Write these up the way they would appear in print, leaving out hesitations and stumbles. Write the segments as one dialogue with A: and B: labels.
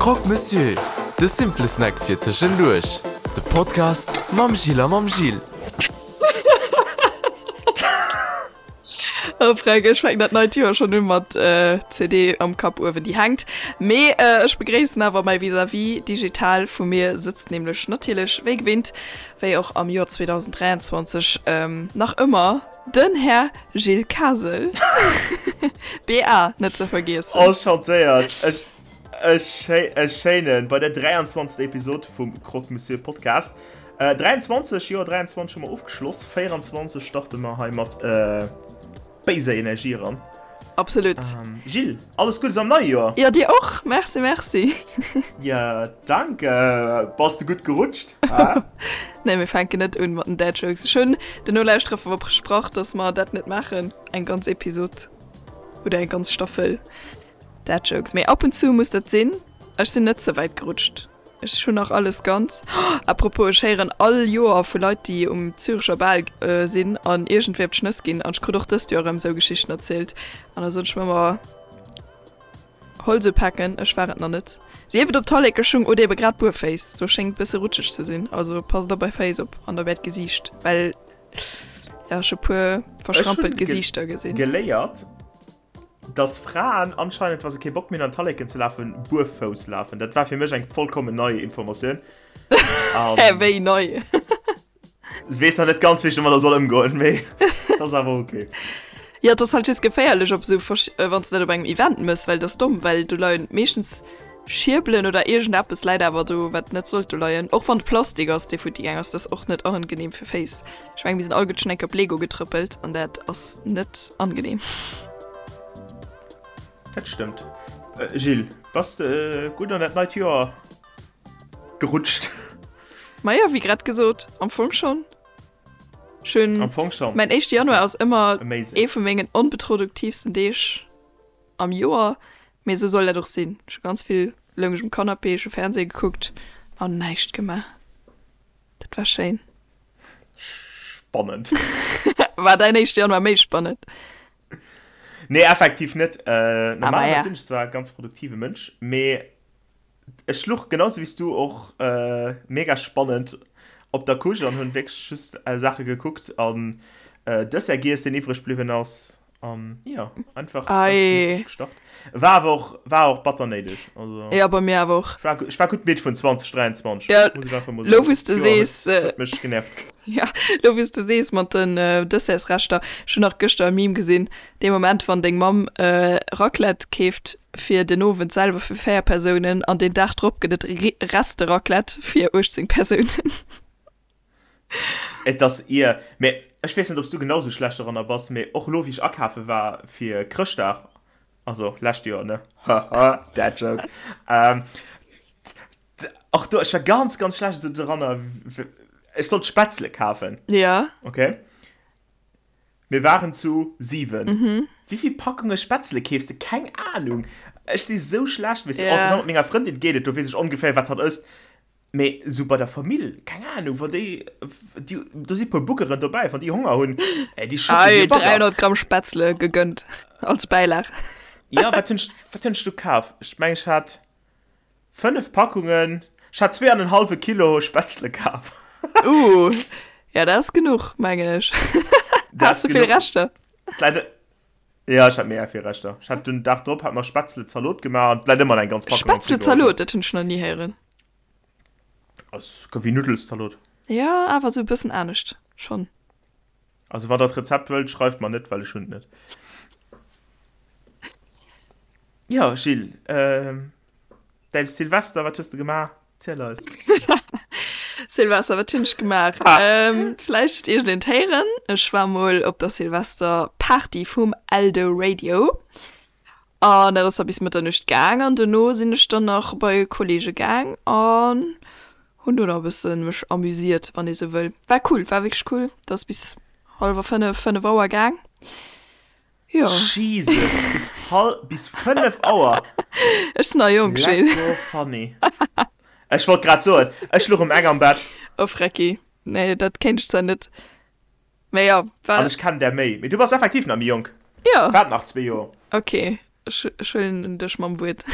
A: Croque Monsieur, de simple Snack fir tëschenduerch. De Podcast mam Jill a mam Gilles.
B: Oh Fränk, ech fänken dat neit Joer schonn u mat CD am Kapp uewen, déi hänkt. Mee ech begréissen awer mäi Vis-à-vis digital. Vu mir sëtzt nämlech natierlech wéi gewinnt, wéi och am Joer 2023 nach ëmmer, den Här Gilles Kasel. BA net ze vergiessen.
C: Enchantéiert. E schéinen bei der 23. Episod vum Croque Monsieur Podcast. 23, Joer 23 hu mer ofgeschloss, 24 starte mer hei mat béiser Energie eran.
B: Absolut.
C: Gilles, alles Guddes am neie Joer!
B: Jo, dir och! Merci, merci!
C: Jo, dank! Bass de gutt gerutscht?
B: Nee, mir fänken net un mat den Dad Jokes. Ech hunn den Nolauschterer versprach, dass mer dat net maachen, eng ganz Episod oder eng ganz Staffel Dad Jokes. Mee ab und zu muss dat sinn. Ech sinn net ze wäit gerutscht. Ech hunn nach alles ganz. À propos, ech héieren all Joer vu Leit, déi um Zürecher Bal sinn an iergendwéi op d'Schnëss ginn. An ech krut och dëst Joer erëm esou Geschichten erzielt. An da soen ech mer ëmmer, Holz upaken, ech war et nach net. Sief et op Tallekeschung oder ebe grad buerféiss, do schéngt bësse rutscheg ze sinn. Also passt op är Féiss op an op äert Gesiicht, well jo, ech hu puer verschrampelt Gesiichter gesinn.
C: Ech hu geléiert, Dass Fraen anscheinend, wa se kee Bock méi hunn an d'Talleken ze lafen, buerfouss lafen. Dat war fir mech eng vollkommen nei Informatioun.
B: Hä, wéi nei?
C: Weess nach net ganz, wéi ech domadder soll ëmgoen, mee et ass awer ok.
B: Jo, et ass halt just geféierlech op esou, wann s de dat op engem Event mëss, well et ass domm, well do leien meeschtens Schierbelen oder iergendeppes läit awer do, wat net sollt do leien. Och wann et Plastik ass, dee futti gaang ass, dat ass och net angenehm fir Féiss. Ech mengen, mir sinn all gutt schonn eng Kéier op Lego getrëppelt an dat ass net angenehm.
C: Dat stëmmt. Gilles, bass de gutt an dat neit Joer gerutscht?
B: Majo, wéi grad gesot, am Fong schonn. Ech hunn,
C: Am Fong schonn.
B: mäin éischte Januar
C: Okay.
B: ass ëmmer
C: Amazing.
B: ee vu mengen onproduktiivsten Deeg am Joer, mee esou soll dat och sinn. Ech hu ganz vill, loung ech um Canapé, ech hu Fernseh gekuckt an näischt gemaach. Dat war schéin.
C: Spannend.
B: War däin éischte Januar méi spannend?
C: Nee, effektiv net.
B: Ah,
C: Normalerweis
B: maja.
C: sinn ech zwar e ganz produktive Mënsch, mee Ech luch genau sou wéis du och mega spannend op der Couche an hunn wierklech just Saache gekuckt an Dessert giess deen iwwreg bliwwen ass an jo einfach ganz gemütlech gestart. War awer och war och batter néideg also
B: Jo bei mir awer och.
C: Ech war ech war gutt midd vun 2023
B: Ja
C: muss ech einfach mol
B: lo
C: soen.
B: wous de
C: D'Joer
B: sees
C: huet huet mech genervt.
B: Ja lo wous de sees mat den Dessertsreschter, ech hunn nach gëschter e Meme gesinn, Dee Moment wann deng Mamm Raclette keeft fir den Owend selwer fir 4 Persounen an deen Dag drop gëtt et Reste-Raclette fir 18 Persounen.
C: Et ass ier, mee ech weess net ob s du genau sou schlecht doranner bass, mee och elo wéi ech akafe war fir Chrëschtdag, also lescht Joer ne, haha dad joke, och do ech war ganz ganz schlecht esou doranner, ech sollt Spätzle kafen,
B: Ja.
C: okay. Mir waren zu 7. Wéivill Packunge Spätzle keefs de? Keng Ahnung. Ech si sou schlecht, weess de.
B: Ja.
C: Mat menger Frëndin geet et, do weess ech ongeféier, wat hatt ësst. Mee sou bei der Famill, keng Ahnung, wann déi, déi, do si puer Buggeren dobäi, wann déi Honger hunn, ey, déi schëdde wéi
B: Ei,
C: e Bagger.
B: 300 Gramm Spätzle gegënnt als Bäilag.
C: Jo, wat hunn ech, wat hunn ech do kaf? Ech mengen, ech hat 5 Packungen, ech hat zwee an en hallwe Kilo Spätzle kaf.
B: Uh, ja dat ass genuch, mengen ech. Has de vill Reschter?
C: D'läit, ja ech hat mega vill Reschter. Ech hat den Dag drop hat mer Spätzle-Zalot gemaach an d'läit ëmmer nach eng ganz Packung am Frigo.
B: Spätzle-Zalot, dat hunn ech nach ni héieren.
C: Ass wéi Nuddelszalot.
B: Ja, awer sou e bëssen anescht schonn.
C: Also wann der d'Rezept wëllt, schreift mer net, well ech hunn et net. Jo, Gilles, däin Silvester, wat hues de gemaach? Ziel eis.
B: Silvester, wat hunn ech gemaach? Vläicht huet iergendeen et héieren, ech war mol op der Silvesterparty vum Eldoradio. An dat ass da bis Mëtternuecht gaang an dono sinn ech dann nach bei Kollege gaang an hunn do nach e bësse mech amüsiert, wann ee sou wëll. War cool, war wierklech cool. Dat ass bis hallwer 5, 5 Auer gaang. Jo.
C: Jesus, bis hal bis 5 Auer?
B: Ech sinn nach jonk, Gilles.
C: Lecko funny. Ech wollt grad soen, ech luch um eng am Bett.
B: Oh Frecki, nee, dat kéint ech zwar net. Mä jo,
C: war. An ech kennen där méi. Mee du bass effektiv nach méi jonk.
B: Jo.
C: Waart nach zwee Joer.
B: Ok, ech huelen dech mam Wuert.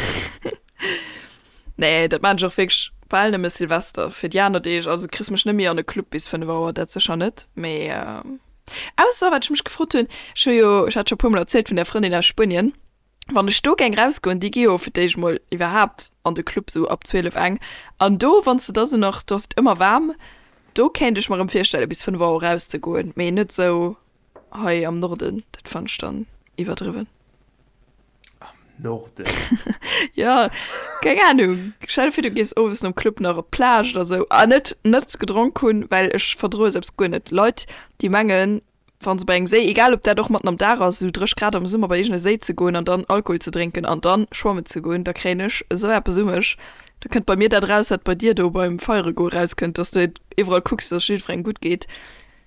B: Nee, dat maan ech och wierklech bal nëmme Silvester. Fir déi aner Deeg, also kriss mech net méi an e Club bis 5 Auer, dat sécher net. Mee ausser, wat ech mech gefrot hunn, ech hu jo, ech hat scho e puer mol erzielt vun där Frëndin aus Spuenien, wann ech do géing rausgoen, déi gi jo fir d'éischt mol iwwerhaapt an de Club sou ab 12, eng, an do, wann s de da sou nach, do ass et ëmmer waarm, do kéint ech mer erëm virstelle bis 5 Auer rauszegoen, mee net sou hei am Norden, dat fannen ech dann iwwerdriwwen.
C: Am Norden?
B: Jo, keng Ahnung. Stell der vir, du gees owes nom Club nach op d'Plage oder sou. A net net gedronk hunn, well ech verdroe selbst guer net Leit, déi mengen, wa se bei engem Séi, egal ob dat och matten am Dag ass, esou 30 Grad am Summer bei iergende Séi ze goen an dann Alkohol ze drénken an dann schwammen ze goen, da kréien ech esou eppes u mech. Da kënnt bei mir dat eraus, wat bei dir do beim Feiere goe rauskënnt, dass de iwwerall kucks, dass et jiddwerengem gutt geet.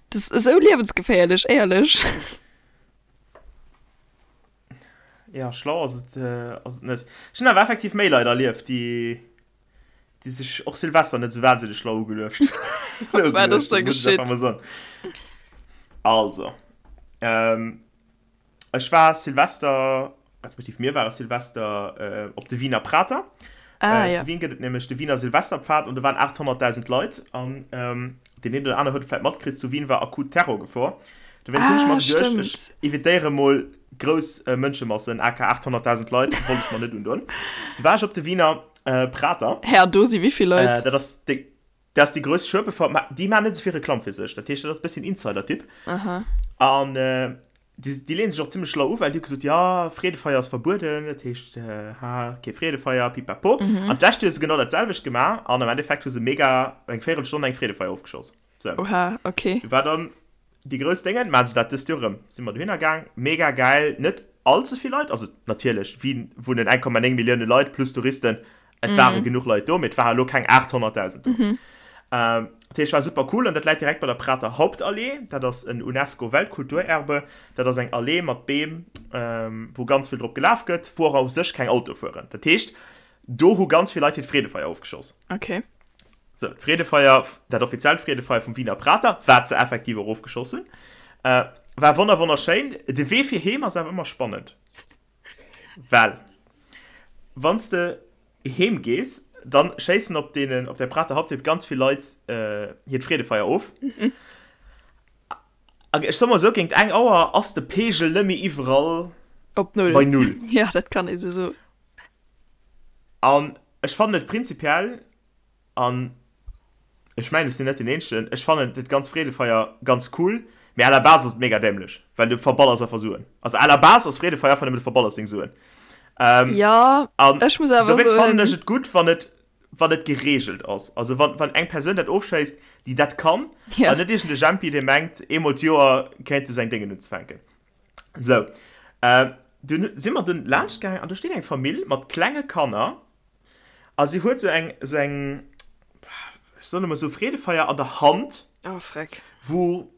B: Dat ass esou liewensgeféierlech, éierlech.
C: Ja, schlau ass et, ass et net. Ech hunn awer effektiv méi Leit erlieft, déi, déi sech och Silvester net esou wahnsinneg schlau ugeluecht
B: Wat ass da geschitt?
C: Also, ähm, ech war Silvester, respektiv mir ware Silvester op de Wiener Prater. Ah, ja. Zu Wien gëtt et nämlech de Wiener Silvesterpfad an do waren 800.000 Leit an deen een oder aner huet et vläit matkritt, zu Wien war akut Terrorgefor. Dowéinst hunn ech mer geduecht, ech evitéiere mol grouss Mënschemassen, aka 800.000 Leit, wollt ech mer net undoen. Du war ech op de Wiener Prater.
B: Hä, an do si wéi vill Leit?
C: Dat ass déi, dat ass déi grouss Schuebefer, mä déi maachen net esou vill Reklamm fir sech, dat heescht, dat ass e bësschen Insider-Tipp.
B: Aha.
C: An Déi, déi leeën sech och zimmlech schlau u, well déi hu gesot, jo, Freedefeier ass verbueden, dat heescht, ha, kee Freedefeier, pipapo. An d'lescht Joer hu se genau dat selwecht gemaach an am Endeffekt hu se mega eng Véierelstonn eng Freedefeier ofgeschoss.
B: Sou. Oha, okay.
C: Du war dann déi grouss Déngen, maachen se dat dëst Joer erëm. Si mer dohinner gaang, mega gäil, net all ze vill Leit, also natierlech, Wien wunnen 1,9 Millioune Leit plus Touristen, Et ware genuch Leit do, mee et ware lo keng 800.000 do. Dat heescht, war super cool an dat läit direkt bei der Prater Hauptallee. Dat ass en UNESCO-Weltkulturerbe. Dat ass eng Allee mat Beem, wou ganz vill drop gelaf gëtt, wou och u sech keng Autoe fueren. Dat heescht, do hu ganz vill Leit hiert Freedefeier ofgeschoss.
B: Okay.
C: Sou, d'Freedefeier, dat offiziellt Freedefeier vum Wiener Prater, wat se effektiv och ofgeschoss hunn, war wonner wonnerschéin. De Wee fir heem ass awer ëmmer spannend. Well wann s de heem gees, dann schéissen op deenen, op der Prater Hauptweg ganz vill Leit hiert Freedefeier of. An ech soe mol esou, géint eng Auer ass de Peegel net méi iwwerall
B: Op Null.
C: bei Null.
B: Jo, dat kann ee sou soen.
C: An ech fannen et prinzipiell An ech mengen, ech sinn net deen Eenzegen, ech fannen dat ganz Freedefeier ganz cool, mee à la base ass et mega dämlech, well du verballers einfach Suen. Also à la base ass Freedefeier einfach nëmmen, du verballers deng Suen.
B: Ähm, ja,
C: an
B: ech muss awer
C: dowéinst fannen ech et gutt, wann et, wann et gereegelt ass. Also wann, wann eng Persoun dat ofschéisst, déi dat kann,
B: ja.
C: an net iergend e Jempi, dee mengt, eemol d'Joer kéint e seng Déngen unzefänken. Sou, äh, dunn si mer dunn laanscht gaangen an do steet eng Famill mat klenge Kanner A si huet sou eng, sou eng, ech soen emol sou Freedefeier an der Hand.
B: Oh, freck.
C: Wou,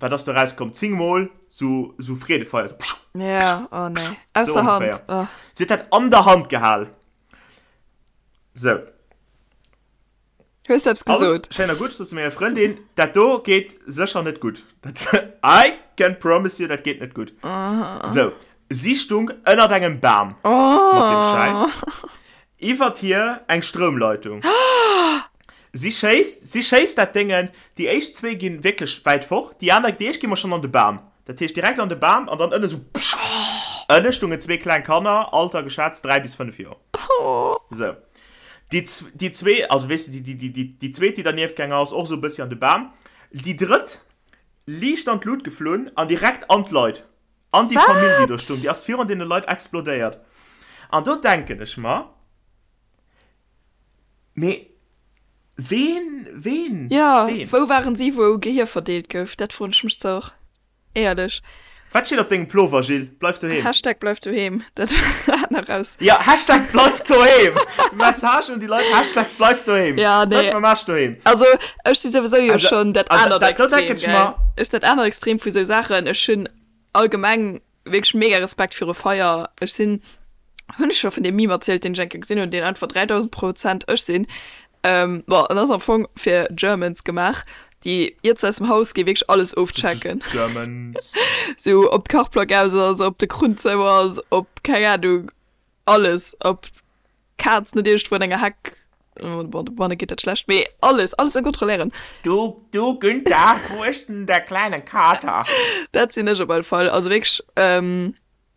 C: wat ass do erauskomm, 10 mol sou, sou Freedefeier, sou pschuh,
B: Ja, oh nee. Aus
C: sou
B: der Hand,
C: ongeféier.
B: oh.
C: Si huet dat an der Hand gehal. Sou.
B: Hues du eppes
C: Alles
B: gesot?
C: schéin a gutt, ech sot zu menger Frëndin, dat do geet sécher net gutt. Dat, I can promise you, dat geet net gutt. Sou, si stung ënnert engem Bam mat deem Schäiss, iwwert hir eng Stroumleitung. Si schéisst, si schéisst dat Déngen, déi éischt zwee ginn wierklech wäit fort, déi aner, déi éischt gi mer schonn an de Bam, dat heescht direkt an de Bam an dann ënne sou psch! Ënne stungen zwee kleng Kanner, Alter geschätzt 3 bis 5 Joer. Sou. Déi, déi zwee, also weess de, déi, déi, déi, déi zweet, déi dernieft gaang ass, och esou e bëssi an de Bam. Déi drëtt, liicht an d'Lut geflunn an direkt an d'Leit, an déi Famill, déi do
B: Wat?
C: stung. Déi ass virun deene Leit explodéiert. An do denken ech mer, Mee ween, ween,
B: Jo,
C: ween?
B: wou waren si, wou Gehier verdeelt gouf? Dat froen ech mech ze och. Éierlech.
C: Wat steet op dengem Plover, Gilles? Bleif doheem.
B: Hashtag bleif doheem, dat hat nach raus.
C: Jo, Hashtag bleif doheem! Message un déi Leit, Hashtag bleif doheem!
B: Ja, nee.
C: Bleif mam Aarsch doheem!
B: Also, ech si souwisou jo
C: Also,
B: schonn dat
C: an
B: anert
C: dat, do
B: Extrem,
C: denken ech
B: gell?
C: mer.
B: Ech sinn dat anert Extrem vu sou Saachen. Ech hunn allgemeng wierklech mega Respekt viru Feier. Ech sinn, hunn ech scho vun deem Meme erzielt, deen ech eng Kéier gesinn hunn, deen einfach 3000 Prozent ech sinn. Bon, en ass am Fong fir Germans gemaach, déi iert se aus dem Haus ginn, wierklech alles ofchecken.
C: Germans.
B: Sou, ob d'Kachplack aus ass, ob de Krunn zou ass, ob, keng Ahnung, alles, ob d'Kaz net iergendwou an enger Heck. Bon, dobanne geet dat schlecht, mee alles, alles ze kontrolléieren.
C: Du, du Günther, wou ist denn der kleine Kater?
B: Dat sinn ech op alle Fall. Also wierklech,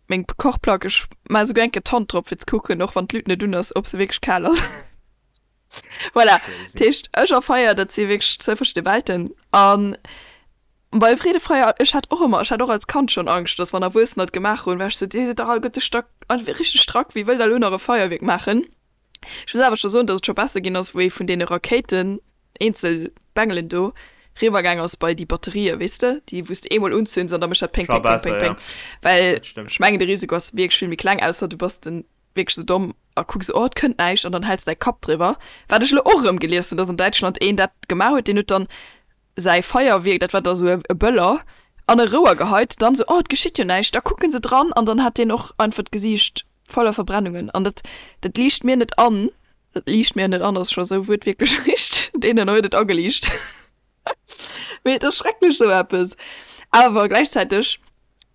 B: meng Kochplack, ech maache souguer eng Kéier d'Hand drop fir ze kucken, och wann d'Luut net un ass, ob se wierklech kal ass. Voilà, dat heescht, ech a Feier, dat si wierklech zwou verschidde Welten. A bei Freedefeier, ech hat och ëmmer, ech hat och als Kand schonn Angscht, dass wann Erwuessener et gemaach hunn, war ech sou, Dir sidd dach alleguerte stack, richteg strack, wie wëll da elo nach e Feierwierk maachen? Ech muss awer scho soen, dass et scho besser ginn ass, wou ee vun deene Rakéiten, eenzel Bengelen do, riwwer gaang ass bei déi Batterië, weess de, déi wou s de eemol unzünns an da mécht dat péng, péng, péng, péng, péng. Well ech mengen, de Risiko ass wierklech vill méi kleng, ausser du bass de wierklech sou domm a kucks, oh, et kënnt näischt, an dann häls de däi Kapp driwwer. Wat ech elo och erëm gelies hunn, dass an Däitschland een dat gemaach huet, deen huet dann säi Feierwierk, dat war da sou e Böller, an e Rouer geheit, dann sou, oh, et geschitt jo näischt, da kucke se dran an dann hat deen och einfach d'Gesiicht voller Verbrennungen an dat, dat liicht mir net an, dat liicht mir net an ass scho sou wuertwiertlech richteg, deenen huet et ageliicht. Mee et ass schrecklech sou eppes. Awer gläichzäiteg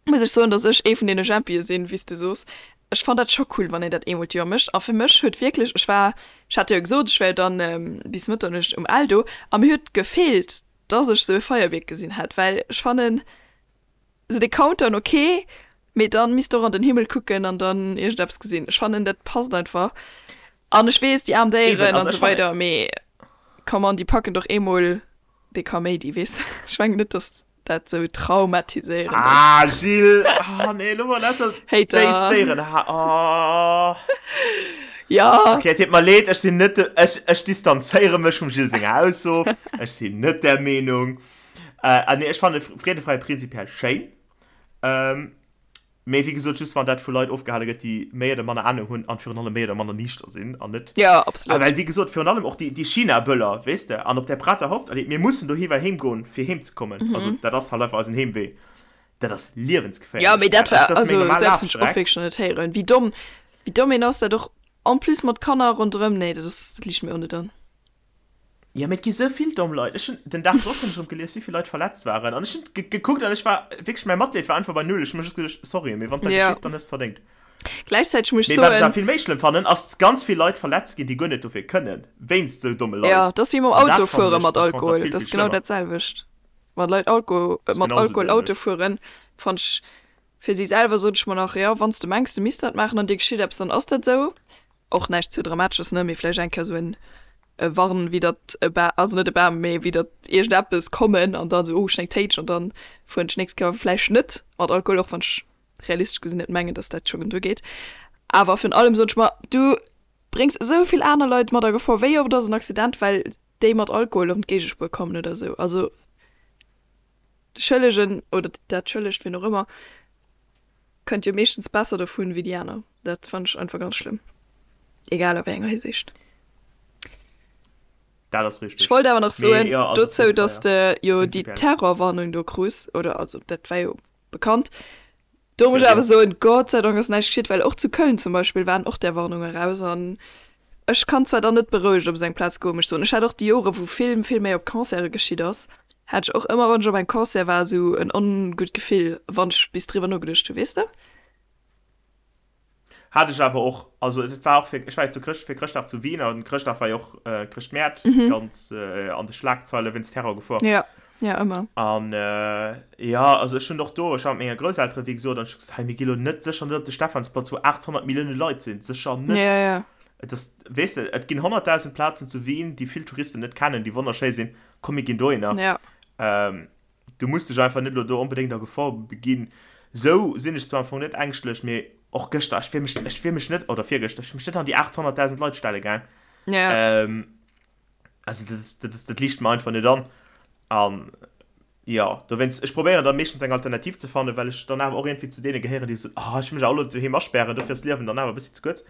B: muss ech soen, dass ech ee vun deene Jempië sinn, wéi s du soos. Ech fann dat scho cool, wann een dat eemol d'Joer mécht. A fir mech huet wierklech, ech war, ech hat jo gesot, ech wär jo dann bis Mëtternuecht um Eldo a mir huet gefeelt, dass ech sou e Feierwierk gesinn hätt, well ech fannen sou de Countdown ok, mee dann misst de och an den Himmel kucken an dann iergendeppes gesinn. Ech fannen dat passt einfach. An ech weess, déi aarm Déieren an esou weider, mee come on, déi packen doch eemol dee Kaméidi, weess de? Ech mengen net, dass dat sou traumatiséierend
C: ass. Ah, Gilles, oh nee, elo mol net dat
B: Hater.
C: béis Déieren, ha, oh.
B: Ja.
C: Okay, et deet mer leed, ech sinn net de, ech, ech distanzéiere mech vum Gilles senger Ausso, ech sinn net där Meenung. Äh, ah nee, ech fanne Freedefeier prinzipiell schéin. Ähm, Mee wéi gesot, just wann dat vu Leit ofgehale gëtt, déi méi oder manner Ahnung hunn an virun allem méi oder manner niichter sinn an net.
B: Jo, absolut.
C: Well wéi gesot, virun allem och déi, déi China-Böller, weess de, an op der Prater Hauptallee, mir mussen dohiwwer heem goen, fir heem ze kommen. Also dat ass halt einfach eisen Heemwee. Dat ass liewensgeféierlech.
B: Jo, mee dat war,
C: Dat ass meng
B: also
C: normal
B: esou eppes hunn ech och
C: Lafstreck.
B: wierklech nach net héieren. Wéi domm, wéi domm een ass, dat och en plus mat Kanner ronderëm, nee, dat ass, dat liicht mir och net an.
C: Ja, mee et gi sou vill domm Leit. Ech hunn, den Dag drop hunn ech erëm gelies, wéi vill Leit verletzt waren. An ech hunn gekuckt an ech war wierklech, mäi Matleed war einfach bei null. Ech hu mer just geduecht, sorry, mee wann et da
B: Ja.
C: geschitt, dann hues de verdéngt.
B: Gläichzäiteg muss ech
C: Mee wat ech awer
B: soen.
C: vill méi schlëmm fannen, ass, ganz vill Leit verletzt ginn, déi guer net dofir kënnen, wéinst sou domme Leit.
B: Ja, dat ass wéi mam
C: An dat
B: Auto
C: fannen
B: fuere
C: ech
B: mat
C: par contre
B: Alkohol.
C: vill,
B: Dat
C: vill
B: ass genau
C: schlëmmer.
B: dat selwecht. Wann Leit Alko
C: Dat ass
B: mat
C: genau sou
B: Alkohol Auto
C: dämlech.
B: fueren, fannt ech fir si selwer, sot ech mer nach, jo, wann s de mengs, de misst dat maachen an dir geschitt eppes, dann ass dat sou. Och näischt ze Dramatesches, ne, mee vläicht eng Kéier sou en e Warn widdert e Ba, also net e Bam, mee widdert iergendeppes kommen an dann sou, oh, ech hunn eng Téitsch an dann fueren ech d'nächst Kéier vläicht net mat Alkohol, och wann ech realistesch gesinn net mengen, dass dat schonn duergeet. Awer virun allem soen ech mer, du bréngs esou vill aner Leit mat a Gefor, wéi oft ass en Accident, well déi mat Alkohol an d'Géigespuer kommen oder sou. Also de Schëllegen oder dat Schëllegt, wien och ëmmer, kënnt jo meeschtens besser dovun wéi déi aner. Dat fannen ech einfach ganz schlëmm, egal a wéi enger Hisiicht.
C: Dat ass richteg.
B: Ech wollt awer nach
C: Mee
B: soen
C: jo, also
B: dozou,
C: Freedefeier,
B: dass de jo déi
C: prinzipiell.
B: Terrorwarnung do krus, oder also dat war jo bekannt. Do muss
C: Fir
B: ech awer
C: Riets.
B: soen, Gott sei Dank ass näischt geschitt, well och zu Köln zum Beispill waren och där Warnunge raus an ech kann zwar dann net berouegt op esou eng Plaz goen, muss ech soen. Ech hat och déi Jore wou vill, vill méi op Concerte geschitt ass, hat ech och ëmmer wann ech op engem Concert war esou en ongutt Gefill, wann ech bis driwwer nogeduecht hu, weess de?
C: Hat ech awer och, also et war och fir, ech war jo zu Chrëscht, fir Chrëschtdag zu Wien an Chrëschtdag war jo och äh, Chrëschtmäert mhm. ganz äh, an de Schlagzeile wéinst Terrorgefor.
B: Ja, ja ëmmer.
C: An äh, ja, also ech hunn och do, ech war mat menger Grousseltere wéi gesot an ech gesot, hey, mir gi lo net sécher net op de Stephansplatz, wou 800 Millioune Leit sinn, sécher net.
B: Ja, ja.
C: Et ass, weess de, et ginn 100.000 Plazen zu Wien, déi vill Touristen net kennen, déi wonnerschéi sinn, komm mir ginn dohinner.
B: Ja.
C: Ähm, Du muss dech einfach net elo do onbedéngt a Gefor beginn. Sou sinn ech zwar am Fong net ängschtlech, mee och gëschter, ech wier mech, ech wier mech net, oder virgëschter, ech wier mech net an déi 800.000 Leit stelle gaang.
B: Ja.
C: Ähm, also dat ass, dat ass, dat liicht mer einfach net an. An jo, dowéinst, ech probéieren da meeschtens eng Alternativ ze fannen, well ech dann awer och iergendwéi zu deene gehéieren, déi soen, oh, ech wëll mech awer elo doheem aspären, dofir ass d'Liewen dann awer e bëssi ze kuerz.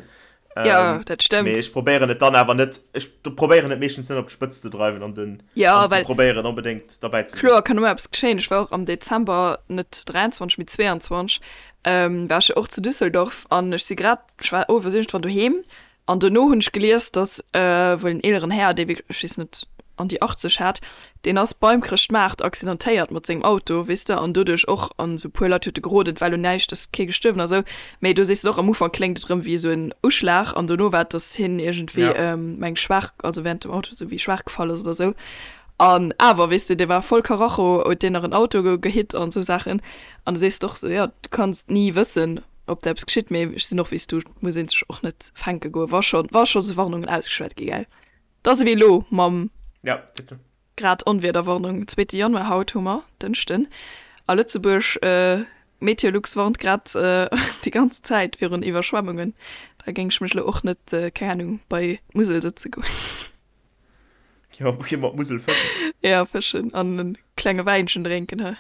B: Ja,
C: Ähm,
B: dat
C: mee
B: stëmmt.
C: ech probéieren et dann awer net, ech probéieren et meeschtens net op d'Spëtzt ze dreiwen an den,
B: Ja,
C: an ze
B: well
C: probéieren onbedéngt derbäi ze sinn.
B: kloer kann ëmmer eppes geschéien. Ech war och am Dezember, net 23, mee 22, ähm, war ech jo och zu Düsseldorf an ech si grad, ech war owes iergendwann doheem an dono hunn ech gelies, dass äh, wuel en eeleren Här, dee wierklech, ech weess net. an déi 80 hat, deen ass beim Chrëschtmaart accidentéiert mat sengem Auto, weess de, an doduerch och, an esou puer Leit huet e geroden, et war elo näischt, ass kee gestuerwen a sou, mee do sees de och, am Ufank kléngt et erëm wéi esou en Uschlag an dono war et, dass hien iergendwéi,
C: Ja.
B: meng schwaach, also während dem Auto esou wéi schwaach gefall ass oder sou. An awer, weess de, dee war voll Karacho, huet deen nach en Auto gehitt an esou Saachen. An da sees de och sou, jo, du kanns ni wëssen, ob der eppes geschitt, mee ech sinn och wéi s du, et muss ee sech och net fänke goen, wa scho, wa scho sou Warnungen ausgeschwat gi, gell. Et ass ewéi elo mam
C: Ja, bitte.
B: Grad Onwiederwarnung, zweete Januar haut hu mer, Dënschden, a Lëtzebuerg. Meteolux warnt grad déi ganz Zäit virun Iwwerschwemmungen. Da géing ech mech elo och net, keng Ahnung, bei d'Musel sëtze goen.
C: Jo, gi mer d'Musel fëschen.
B: Ja, fëschen an e klenge Wäinchen drénken, he.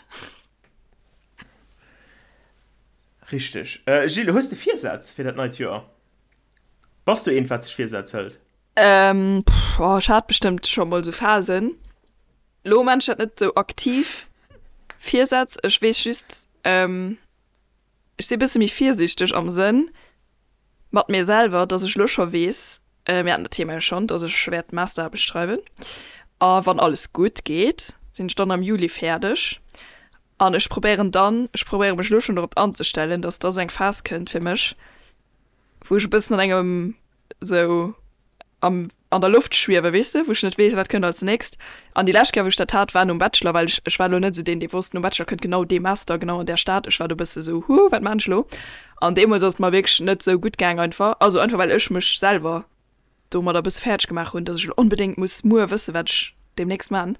C: Richteg. Gilles, hues de Virsätz fir dat neit Joer? Bass du eent, wat sech Virsätz hëlt?
B: Pff, oh, ech hat bestëmmt scho mol sou Phasen. Lo maan ech dat net sou aktiv, Virsätz. Ech weess just, ech si bësse méi virsiichteg am Sënn mat mir selwer, dass ech lo scho weess, mir haten dat Thema jo schonn, dass ech wäert Masteraarbecht schreiwen a wann alles gutt geet, sinn ech dann am Juli fäerdeg an ech probéieren dann, ech probéiere mech lo schonn dorop anzestellen, dass da sou eng Phas kënnt fir mech, wou ech e bëssen an engem sou am an der Loft schwiewen, weess de, wou ech net weess, wat kënnt als nächst. An déi lescht Kéier, wou ech dat hat, war nom Bachelor, well ech, ech war elo net esou deen, dee wosst, nom Bachelor kënnt genau dee Master, genau an där Stad. Ech war do e bësse sou, huh, wat maan ech elo? An deemools ass et mer wierklech net sou gutt gaang einfach, also einfach well ech mech selwer domadder e bësse fäerdeg gemaach hunn, dass ech elo onbedéngt muss muer wëssen, wat ech deemnächst maan.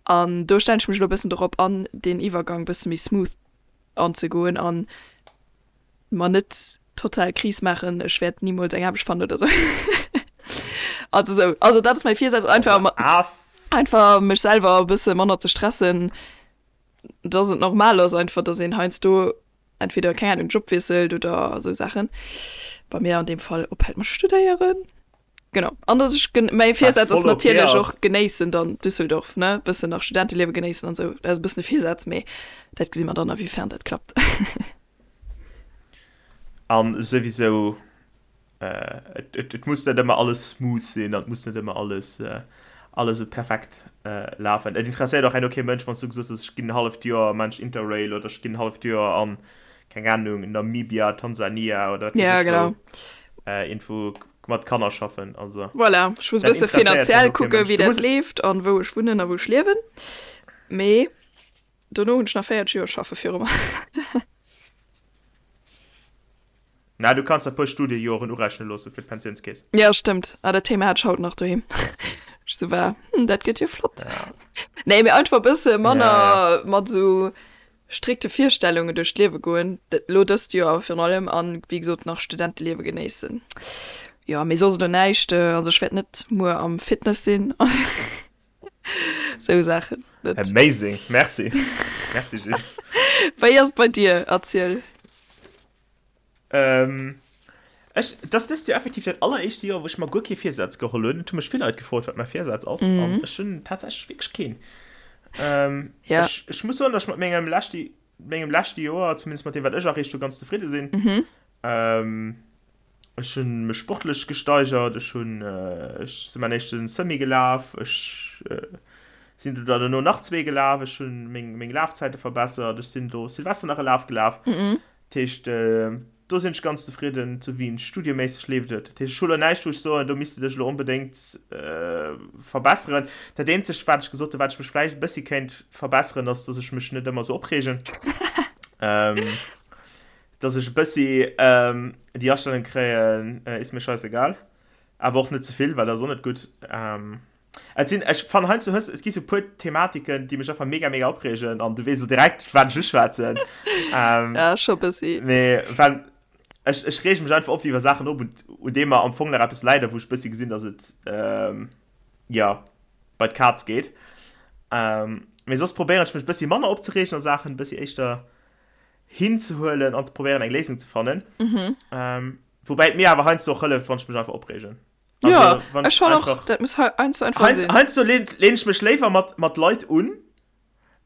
B: An do stellen ech mech elo e bëssen dorop an, deen Iwwergang e bësse méi smooth anzegoen an mer net total Kris maachen, ech wäert nimools eng Aarbecht fannen oder sou. Also sou, also dat ass mäi Virsaz, einfach
C: Also,
B: einfach mech selwer e bësse manner ze stressen, dass et normal ass einfach, dass een heiansdo entweder, keng Ahnung, Job wiesselt oder sou Saachen. Bei mir an deem Fall ophält mat studéieren. Genau. An dass ech gen, mäi
C: wat
B: Virsaz ass
C: voll okay
B: natierlech
C: ass.
B: och genéissen dann Düsseldorf, ne, bëssen nach Studenteliewe genéissen an sou. Dat ass e bëssen e Virsaz, mee dat gesi mer dann a wéi fern dat klappt.
C: An souwisou, et muss net ëmmer alles smooth sinn an et muss net ëmmer alles alles esou perfekt lafen. Et interesséiert och herno kee Mënsch, wann s du gesot hues, ech ginn en halleft Joer maan ech Interrail oder ech ginn en halleft Joer an, keng Ahnung, Namibia, Tansania oder wat weess
B: Ja,
C: ech wou,
B: genau.
C: iergendwou mat Kanner schaffen. Also
B: Voilà, ech muss e
C: dat
B: bësse
C: interesséiert herno
B: finanziell
C: kee
B: kucken,
C: Mënsch.
B: wéi
C: Du
B: dat
C: muss.
B: leeft an wou ech wunnen a wou ech liewen. Mee Dono hunn ech nach 40 Joer schaffe viru mer.
C: Na, du kanns der puer Studiejoren urechne loosse fir d'Pensiounskeess.
B: Jo, stëmmt. Ah, dat Thema hat ech haut nach doheem. Ech sou war, hm, dat gëtt jo flott.
C: Ja.
B: Nee, mee einfach e bësse
C: Ja, ja.
B: manner mat esou strikte Virstellungen duerch d'Liewe goen. Dat elo dëst Joer virun allem an, wéi gesot, nach Studenteliewe genéissen. Jo, mee soss elo näischt. Also ech wäert net muer am Fitness sinn. Sou Saachen
C: net. Amazing, merci. Merci Gilles.
B: Wéi ass et bei dir? Erziel.
C: Ähm, ech, dat ass dëst Joer effektiv dat alleréischte Joer, wou ech mer guer kee Virsaz geholl hunn. Et hu mech vill Leit gefrot, wat mäi Virsaz ass, mhm. an ech hunn tatsächlech wierklech keen. Ähm,
B: ja.
C: ech, ech muss soen, dass ech mat mengem leschte, mengem leschte Joer, zumindest mat deem, wat ech erreecht hu, ganz zefridde sinn.
B: Mhm.
C: Ähm, Ech hunn mech sportlech gesteigert, ech hunn, ech sinn mäin éischten Semi gelaf, ech sinn do dann dono nach zwee gelaf, ech hunn meng meng Lafzäite verbessert, ech sinn do Silvester nach e Laf gelaf. Dat heescht, do sinn ech ganz zefridden. Zu Wien studieméisseg leeft et. Dat heescht, ech hu lo näischt wou ech soen, do misst de dech elo onbedéngt verbesseren. Dat eenzegt wat ech gesot hunn, wat ech mech vläicht e bëssi kéint verbesseren, ass, datt ech mech net ëmmer esou opreegen. Dass ech e bëssi déi Astellung kréien, ist mir scheißegal. Awer och net ze vill, well dat ass och net gutt. Et sinn, ech fannen heiansdo hues, et gi sou puer Thematiken, déi mech einfach mega, mega opreegen an du weess elo direkt, wat ech uschwätzen.
B: Ja, scho bëssi.
C: Mee well ech, ech reege mech einfach oft iwwer Saachen op, un, un deem mer am Fong nach eppes läit a wou ech bëssi gesinn, dass et, jo, bei d'Kaz geet. Mee soss probéieren ech mech bëssi manner opzereegen a Saachen, bëssi éischter hinzehuelen an ze probéieren eng Léisung ze fannen.
B: Mhm.
C: Ähm, woubäi et mir awer heiansdo och hëlleft, wann ech mech einfach opreegen.
B: Ja,
C: Also, wann
B: ech
C: ech
B: fannen och,
C: einfach
B: dat muss heiansdo einfach
C: heians,
B: sinn.
C: heiansdo lehn, lehn ech mech léiwer mat, mat Leit un,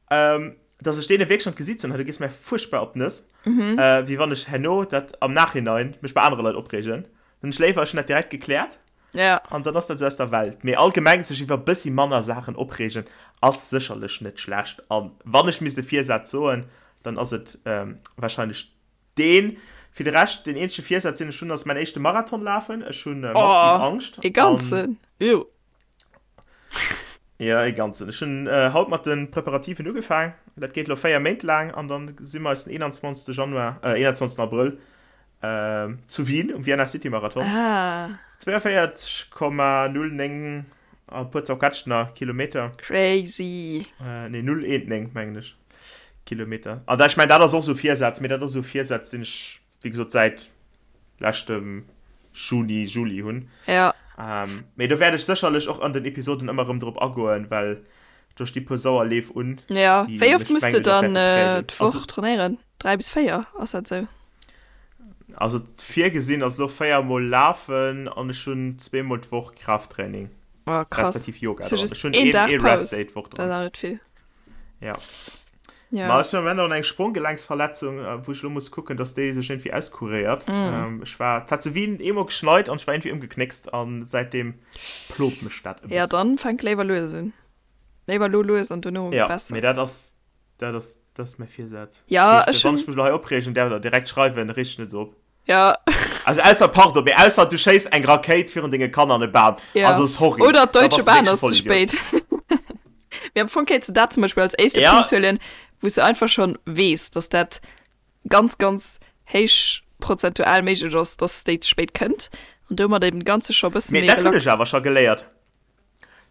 C: ähm, dass ech deene wierklech an d'Gesiit soen, hei, du gees mir fuerchtbar op d'Nëss,
B: Mhm.
C: äh, wéi wann ech herno dat am Nachhinein mech bei anere Leit opreegen. Dann hunn ech léiwer, ech hunn dat direkt gekläert.
B: Ja.
C: An dann ass dat esou aus der Welt. Mee allgemeng sech iwwer e bëssi manner Saachen opreegen ass sécherlech net schlecht. A wann ech misst e Virsaz soen, dann ass et warscheinlech deen. Fir de Rescht, deen eenzege Virsaz, deen ech hunn, ass mäin éischte Marathon lafen. Ech hu massiv
B: Oh,
C: Angscht.
B: e ganzen? Ew.
C: Jo, e ganzen. Ech hunn haut mat de Preparativen ugefaang. Dat geet elo 4 Méint laang an dann si mer eis den 21. Januar, 21. Abrëll zu Wien um Vienna City Marathon.
B: Ah.
C: 42,09 a puer zerquetscht nach Kilometer.
B: Crazy.
C: Nee, 0,19 mengen ech Kilometer. An ech mengen dat ass och esou e Virsaz, mee dat ass esou e Virsaz, deen ech wéi gesot säit leschtem Juni, Juli hunn.
B: Ja.
C: Ähm, mee do wäert ech sécherlech och an den Episoden ëmmer erëm drop agoen, well do sti puer sauer Leef un.
B: Ja,
C: déi
B: wéi oft
C: mech
B: muss de
C: mengen ech och
B: dann
C: wäerte
B: äh,
C: prägen.
B: d'Woch
C: Also,
B: trainéieren? 3 bis 4, ass dat sou?
C: also virgesinn ass elo 4 mol lafen an ech hunn zweemol d'Woch Kraafttraining,
B: Oh, krass.
C: respektiv Yoga
B: Hast du
C: dran.
B: just
C: Ech hunn
B: een
C: een,
B: Dag
C: ee
B: Paus?
C: Rest Day d'Woch
B: Dat ass
C: dran.
B: awer net vill.
C: Ja.
B: Ja.
C: Ma ech hunn am Moment och eng Spronggelenksverletzung, wou ech elo muss kucken, dass déi sech iergendwéi auskuréiert. Mm. Ech war, et hat zu Wien eemol geschneit an ech war iergendwéi ëmgeknéckst an säitdeem plot mech dat
B: e bëssen. Ja, dann fänk léiwer lues un. Léiwer lo lues an dono
C: ja,
B: besser.
C: Mee dat ass, dat ass, dat ass mäi Virsaz.
B: Ja, ech
C: hunn. Wann ech mech elo hei opreegen, däerf der direkt schreiwen, reeg dech net esou op.
B: Ja.
C: Also ausser, pardon, mee ausser du schéiss eng Rakéit virun denge Kanner an e Bam.
B: Ja.
C: Also sorry.
B: Oder
C: Da
B: d'Deutsche
C: bass du
B: Bahn
C: wierklech e
B: ass ze
C: Vollidiot.
B: spéit. Mee am Fong kéints de dat zum Beispill als éischte
C: Ja.
B: Punkt huelen, wou s de einfach schonn weess, dass dat ganz, ganz héich prozentual méiglech ass, dass déi ze spéit kënnt an domat eben de Ganze scho e bësse
C: Mee
B: méi
C: dat hunn ech
B: relax.
C: awer scho geléiert.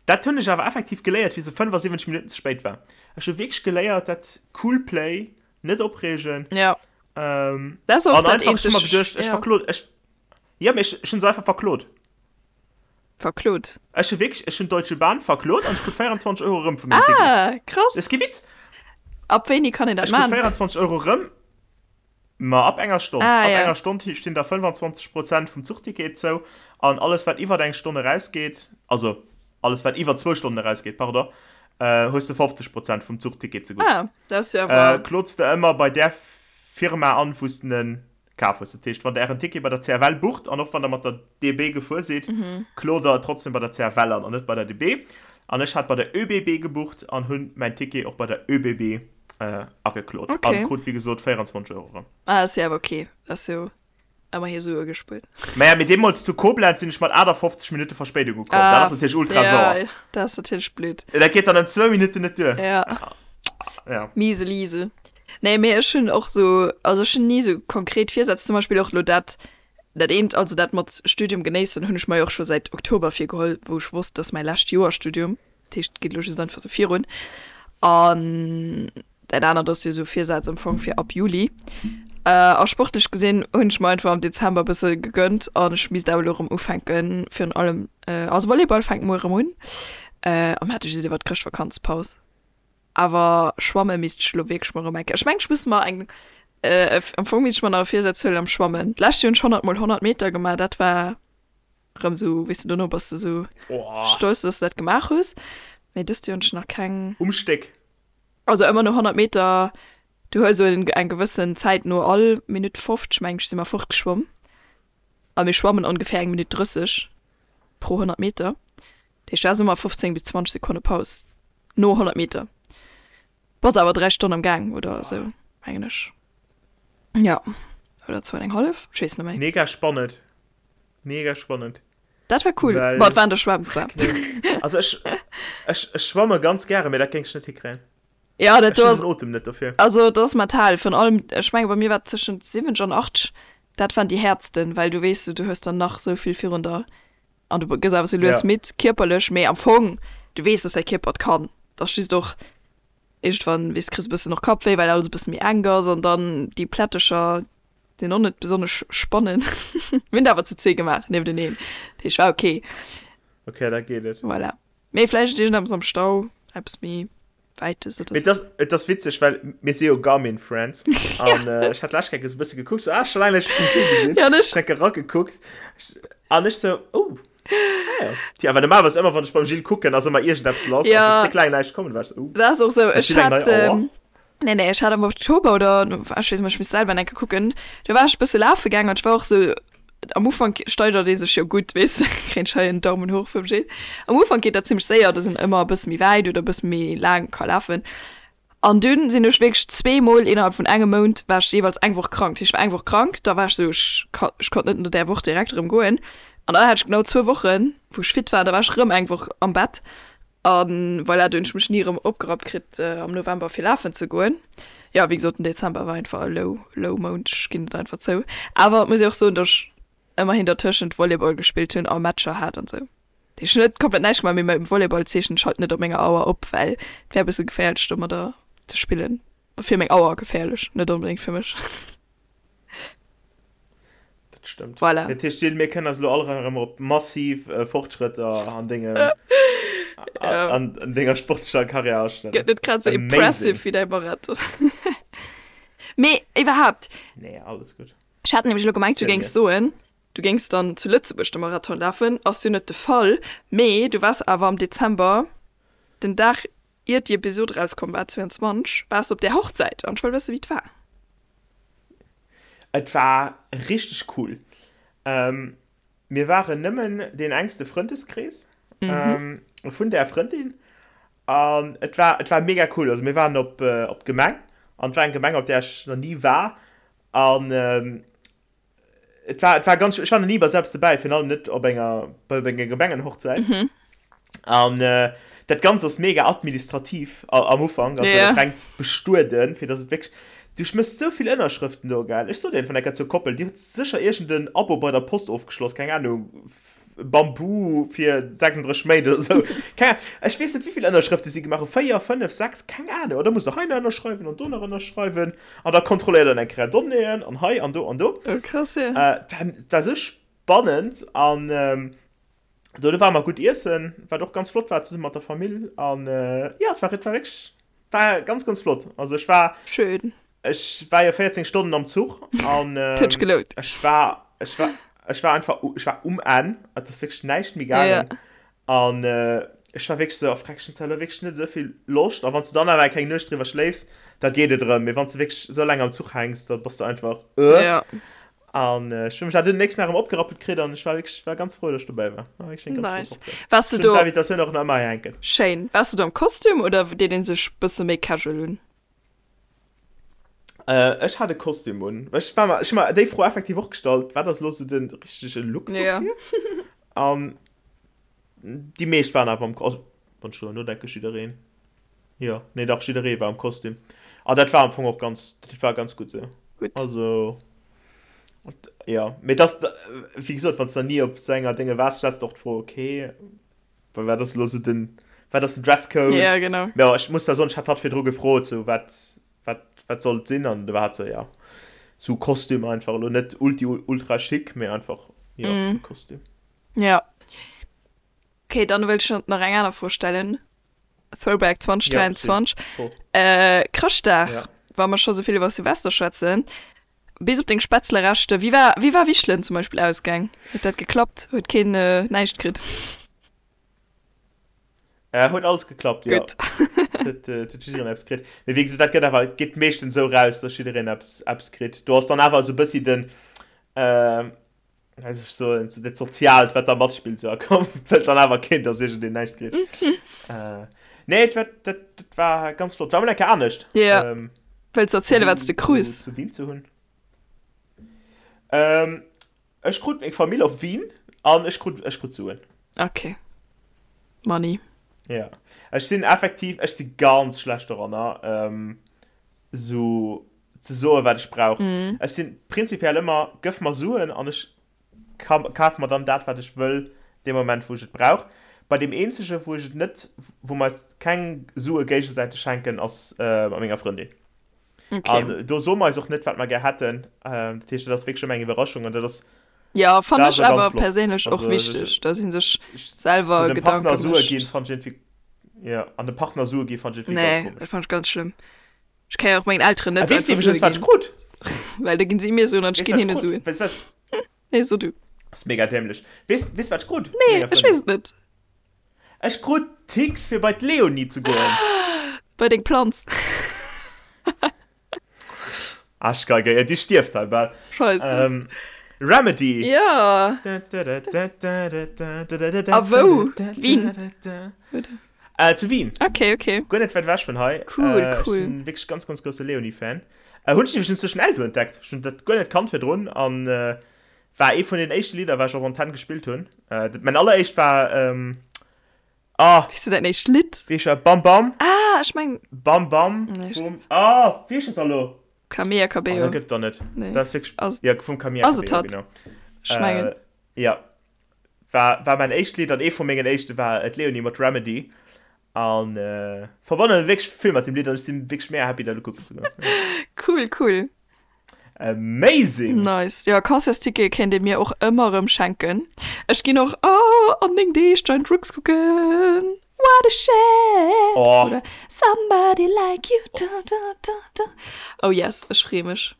C: Dat hunn ech awer effektiv geléiert, wéi se 75 Minutten ze spéit war. Ech hu wierklech geléiert, dat cool play, net opreegen.
B: Ja.
C: Ähm,
B: Dat ass och
C: an
B: dat
C: einfach, ech hu mer
B: eenzeg,
C: geduecht, ech
B: ja.
C: verklot, ech, ja, mee ech, ech hunn se einfach verklot.
B: Verklot?
C: Ech hu wierklech, ech hunn d'Deutsche Bahn verklot an ech krut 24 Euro erëm vu mengem Ticket.
B: Ah, krass.
C: Dat ass kee Witz.
B: Ab wéini kann een dat
C: Ech krut
B: man?
C: 24 Euro erëm, ma ab enger Stonn.
B: Ah,
C: Ab
B: ja.
C: enger Stonn stinn der 25 Prozent vum Zuchticket zou an alles wat iwwert eng Stonn erausgeet, also alles wat iwwer zwou Stonnen erausgeet, pardon, hues de 50 Prozent vum Zuchticket zegutt.
B: Ah, dat ass jo awer.
C: Klots de ëmmer bei där Firma an, wou s de en kaf hues. Dat heescht, wann der ären Ticket bei der CFL bucht an och wann der mat der DB gefuer sidd, klot der et trotzdem bei der CFL an an net bei der DB. An ech hat bei der ÖBB gebucht an hunn mäin Ticket och bei der ÖBB ageklot an krut wéi gesot 24 Euro erëm.
B: Ah, ass jo awer ok. Ass jo Ëmmerhi Sue gespuert.
C: Maja, mee deemools zu Koblenz sinn ech mat 58 Minutte Verspéidung ukomm. Dat ass natierlech ultra sauer.
B: Ja, dat ass natierlech blöd.
C: Dat geet dann ëm zwou Minutten net duer.
B: Ja.
C: Ja.
B: Miese Liese. Nee, mee ech hunn och sou, also ech hunn ni sou konkret Virsätz. Zum Beispill och elo dat, dat eent, also dat mat Studium genéissen, hunn ech mer jo och scho säit Oktober virgeholl, wou ech wosst, dass mäi lescht Joer Studium. Dat heescht, et geet elo just einfach sou virun. An dat anert ass jo sou Virsaz am Fong fir ab Juli. A sportlech gesinn hunn ech mer einfach am Dezember e bësse gegönnt an ech misst awer elo erëm ufänken, virun allem, also Volleyball fänkt muer erëm un. A mir hate just iwwer d'Chrëschtvakanzpaus. Awer schwamme misst ech elo wierklech mol erëm eng Kéier. Ech mengen, ech muss mer eng, am Fong misst ech mer nach e Virsaz huelen am Schwammen. D'lescht Joer hunn ech 100 mol 100 Meter gemaach, dat war Rëm sou, weess de, dono bass de sou stolz, dass de dat gemaach hues. Mee dëst Joer hunn ech nach keng.
C: Um Stéck.
B: Also ëmmer no 100 Meter, du hues esou eng gewëssen Zäit, no all Minutt 50, meng ech, si mer fortgeschwomm. A mir schwammen ongeféier eng Minutt 30 pro 100 Meter. Dat heescht, du has ëmmer 15 bis 20 Sekonne Paus no 100 Meter. Bass awer 3 Stonnen am Gaang oder esou, mengen ech. Jo, oder zwou an eng hallef, ech weess net méi.
C: Mega spannend. Mega spannend.
B: Dat war cool.
C: Well,
B: Bon, et war an der Schwämm zwar.
C: Nee. Also ech, ech, ech schwamme ganz gäre, mee dat géing ech net hikréien.
B: Ja, dat
C: Ech
B: do
C: hunn
B: ass,
C: den Otem net dofir.
B: also dat ass mental. Virun allem, ech menge bei mir war et tëschent 70 an 80, dat waren déi häertsten, well du weess, du hues dann nach sou vill virun der an du gëss awer sou lues
C: Ja.
B: midd, kierperlech, mee am Fong, du weess, dass däi Kierper et kann. Et ass just och iergendwann, weess, kriss e bëssen och Kappwéi, well alles e bësse méi enk ass an dann déi Plättecher, Sinn och net besonnesch spannend. Mir hunn et awer zu zwee gemaach niefteneen, dat heescht war ok.
C: Ok, da geet et.
B: Voilà. Mee vläicht iergendeppes am Stau, eppes méi Wäites oder
C: Mee
B: sou.
C: et ass, et ass witzeg, well mir si jo Garmin Friends an ech hat d'lescht Kéier esou e bësse gekuckt, sou, ah, scho laang net méi Vue gesinn.
B: Ja, an ech.
C: Ech hat eragekuckt an ech sou, oh, ah jo. Tja, well normalerweis ëmmer wann ech beim Gilles kucken, ass ëmmer iergendeppes lass an
B: Ja.
C: et ass déck laang näischt komm, du war ech sou, oh,
B: Dat ass och sou.
C: huet
B: Ech
C: Gilles eng
B: hat,
C: nei Auer?
B: Nee, nee, ech hat am Oktober oder, ech weess net, ech misst selwer eng Kéier kucken, do war ech e bësse lafe gaangen an ech war och sou. Am Ufank steigert ee sech jo gutt, weess de, kréien ech hei en Daumen hoch vum Gilles. Am Ufank geet dat zimmlech séier, dass een ëmmer e bësse méi wäit oder e bësse méi laang ka lafen. An dunn sinn ech wierklech zweemol innerhalb vun engem Mount war ech jeeweils eng Woch krank. Dat heescht, ech war eng Woch krank, da war ech esou, ech ka, ech konnt net no där Woch direkt erëm goen. An da hat ech genau zwou Wochen, wou ech fit war, da war ech erëm eng Woch am Bett. A voilà, do hunn ech mech ni erëm opgerappt kritt am November fir lafen ze goen. Jo, wéi gesot, den Dezember war einfach e low, low Mount, ech ginn et einfach zou. Awer et muss ee och soen, datt ech ëmmerhin dertëschent Volleyball gespillt hunn a Matcher hat an esou. Dat heescht, ech hunn net komplett näischt gemaach, mee mam Volleyball zeechnen ech halt net op menger Auer op, well et wär e bësse geféierlech domadder ze spillen. Fir meng Auer geféierlech, net onbedéngt fir mech.
C: Dat stëmmt.
B: Voilà.
C: Dat heescht, Jill, mir kënnen eis elo all erëm op massiv äh, Fortschrëtter an dengem
B: Ja.
C: an, an denger sportlecher Karriär astellen.
B: Gëtt net grad sou impressive
C: Amazing.
B: wéi däi Marathon. Mee iwwerhaapt,
C: Nee, alles gutt.
B: ech hat nämlech elo gemengt, du
C: Erzähl
B: géings
C: mir.
B: soen, du géings dann zu Lëtzebuerg de Marathon lafen. Ass jo net de Fall, mee du waars awer am Dezember, den Dag iert déi Episod erauskomm war, 22, waars de op där Hochzäit an ech wëll wëssen, wéi et war.
C: Et war richteg cool. Mir waren nëmmen deen engste Frëndeskrees vun där Frëndin an et war, et war mega cool. Also mir waren op, op d'Gemeng an et war eng Gemeng, op där ech nach ni war an Et war, et war ganz, ech war nach ni bei selbst dobäi, virun allem net op enger, bei enger Gemengenhochzäit.
B: Mhm.
C: An äh, dat Ganzt ass mega administrativ am Ufank, also
B: Ja.
C: dat rengt bestueden, fir dass et wierklech, du schmëss sou vill Ënnerschrëften do, gell. Ech sot dir vun ecker zur Koppel, déi huet sécher iergend en Abo bei der Post ofgeschloss, keng Ahnung, Bambu fir 36 Méint oder sou. Keng Ahnung, ech weess net wéivill Ënnerschrëfte si gemaach hunn, 4, 5, 6, keng Ahnung. An da muss de hei nach ënnerschreiwen an do nach ënnerschreiwen an da kontrolléiert en eng Kéier Donnéeën an hei an do an do.
B: Oh krass, ja.
C: Äh, dat war sou spannend an do ware mer gutt iessen, wat och ganz flott war zesumme mat der Famill an jo, et war, et war wierklech, war ganz, ganz flott. Also ech war.
B: Schön.
C: Ech war jo 14 Stonnen am Zuch an
B: Huet gelount.
C: ech war ech war ech war einfach ech war um Enn, et ass wierklech näischt méi gaangen an ech war wierklech sou, oh freck, ech hunn zwar elo wierklech net esou vill Loscht a wann s de dann awer eng kleng Nuecht driwwer schléifs, da geet et erëm, mee wann s de wierklech esou laang am Zuch hänks, da bass de einfach
B: Ja.
C: An ech hunn mech awer dunn den nächsten Dag erëm opgerappelt kritt an ech war wierklech war ganz frou, datt ech dobäi war. War wierklech eng ganz flott
B: Nice.
C: Hochzäit.
B: Waars de
C: Ech hunn
B: do
C: d'Invitatioun och nach ëmmer hei hänken.
B: Schéin. Waars de do am Kostüm oder deet een sech bësse méi casual un?
C: Äh, ech hat e Kostüm un. Ech war mer, ech hu mer déi Fro effektiv och gestallt, wat ass elo sou de richtege Look
B: Ja.
C: dofir? An déi meescht waren awer am, also wann ech driwwer nodenken, jiddereen. Jo, nee dach, jidderee war am Kostüm. An dat war am Fong och ganz, dat war ganz gutt sou.
B: Gutt.
C: Also, jo, mee et ass, wéi gesot, wann s de nach ni op sou enger Dénge waars, stells de och d'Fro, okay, Well wat ass elo sou den, wat ass den Dresscode?
B: Ja, genau.
C: Mä ech muss da soen, ech hat hatt virdru gefrot, sou wat, wat, wat soll et sinn? An du war hat sou, ja, sou Kostüm einfach, elo net ulti ultra chic, mee einfach, jo,
B: Mm.
C: e Kostüm.
B: Ja. Okay, dann wëll ech nach eng aner Fro stellen. Throwback
C: Ja, chill.
B: 2023.
C: Fro.
B: Äh, Chrëschtdag,
C: Ja.
B: wa mer scho sou vill iwwer Silvester schwätzen, Bis op deng Spätzlereschter. Wéi war, wéi war Wichelen zum Beispill ausgaang? Huet dat geklappt? Huet keen näischt kritt?
C: Äh, huet alles geklappt, jo.
B: Gutt.
C: Huet, huet jiddereen eppes kritt. Mee wéi gesot, dat gëtt awer, et geet meeschtens esou raus, dass jiddereen eppes, eppes kritt. Do ass dann awer esou e bëssi den, äh, wéi soll ech soen, esou dat Soziaalt, wat da matspillt, esou, a komm, wëllt dann awer keen, dass iergendeen näischt kritt. Äh, nee, et war, dat, dat war ganz flott. War mol eng Kéier anescht.
B: Ja.
C: Ähm,
B: Wëlls du erzielen, wat s de krus?
C: Zu Wien ze hunn. Ähm, ech krut meng Famill op Wien an ech krut, ech krut Suen.
B: Okay. Money.
C: Ja. Ech sinn effektiv, ech si ganz schlecht doranner, ähm, sou ze soen, wat ech brauch.
B: Mm.
C: Ech sinn prinzipiell ëmmer, gëff mer Suen an ech kaf mer dann dat, wat ech wëll, dee Moment, wou ech et brauch. Bei deem eenzege, wou ech et net, wou mer eis keng Sue géigesäiteg schenken, ass mat menger Frëndin.
B: Okay.
C: An do soe mer eis och net, wat mer gär hätten. Dat heescht, dat ass wierklech ëmmer eng Iwwerraschung an dat ass,
B: Ja,
C: dat
B: fannen
C: ass
B: ech
C: och ganz
B: awer
C: flott.
B: perséinlech och
C: Also,
B: wichteg, dass ee sech
C: ech, sou
B: selwer
C: dem Partner
B: Gedanke
C: Sue ginn,
B: mécht.
C: fannen ech iergendwéi, jo, an dem Partner Sue gi fannen ech iergendwéi ganz
B: Nee,
C: komesch.
B: dat fannen ech ganz schlëmm. Ech kann jo och mengen Elteren
C: A
B: net
C: weess de
B: einfach Sue
C: iwwregens, wat ech
B: ginn.
C: krut?
B: Well da ginn si mir Suen an ech
C: Weess
B: ginn
C: wat ech
B: hinne
C: krut?
B: Suen.
C: Weess wat?
B: Nee, so du.
C: Ass mega dämlech. Weess, weess wat ech krut?
B: Nee,
C: Menger
B: ech
C: Frëndin.
B: weess et net.
C: Ech krut Tix fir bei d'Leonie ze goen.
B: Bei deng Planz.
C: Aschgeige, ja, déi stierft hei bal.
B: Scheisse.
C: Ähm. Remedy!
B: Ja! A wou? Wien?
C: Äh, zu Wien.
B: Okay, okay.
C: Guer net wäit ewech vun hei.
B: Cool,
C: Äh, ech
B: cool.
C: sinn wierklech ganz, ganz grousse Leonie-Fan. Äh, hunn ech iwwregens duerch den Eldo entdeckt. Ech hunn dat guer net kannt virdrun an äh, war ee vun den éischte Lidder, wat ech op Antenn gespillt hunn. Äh, dat, mäin alleréischt war, ähm, ah,
B: Wéi du däin éischt Lidd?
C: wéi heescht dat? Bam Bam.
B: Ah, ech meng.
C: Bam Bam
B: Nee,
C: vum, ah, wéi heescht dat da lo?
B: Camilla
C: Oh,
B: Cabello.
C: dat gëtt et da net.
B: Nee.
C: Dat ass wierklech,
B: Ass,
C: ja, vum Camilla
B: ass et
C: Cabello,
B: hatt?
C: genau.
B: Ech mengen.
C: Äh, ja. War, war mäin éischt Lidd an ee vu mengen éischte war d'Leonie mat Remedy. An äh, verbanne wierklech vill mat dem Lidd an ech sinn wierklech mega happy dat elo kucken ze goen.
B: Cool, cool.
C: Amazing!
B: Nice. Jo, Concertstickete kéint ee mir och ëmmer erëm schenken. Ech ginn och, oh, an 9 Deeg Giant Rooks kucken. What a shame!
C: Oh.
B: Oder Somebody like you, da da da da. Oh yes, ech freeë mech.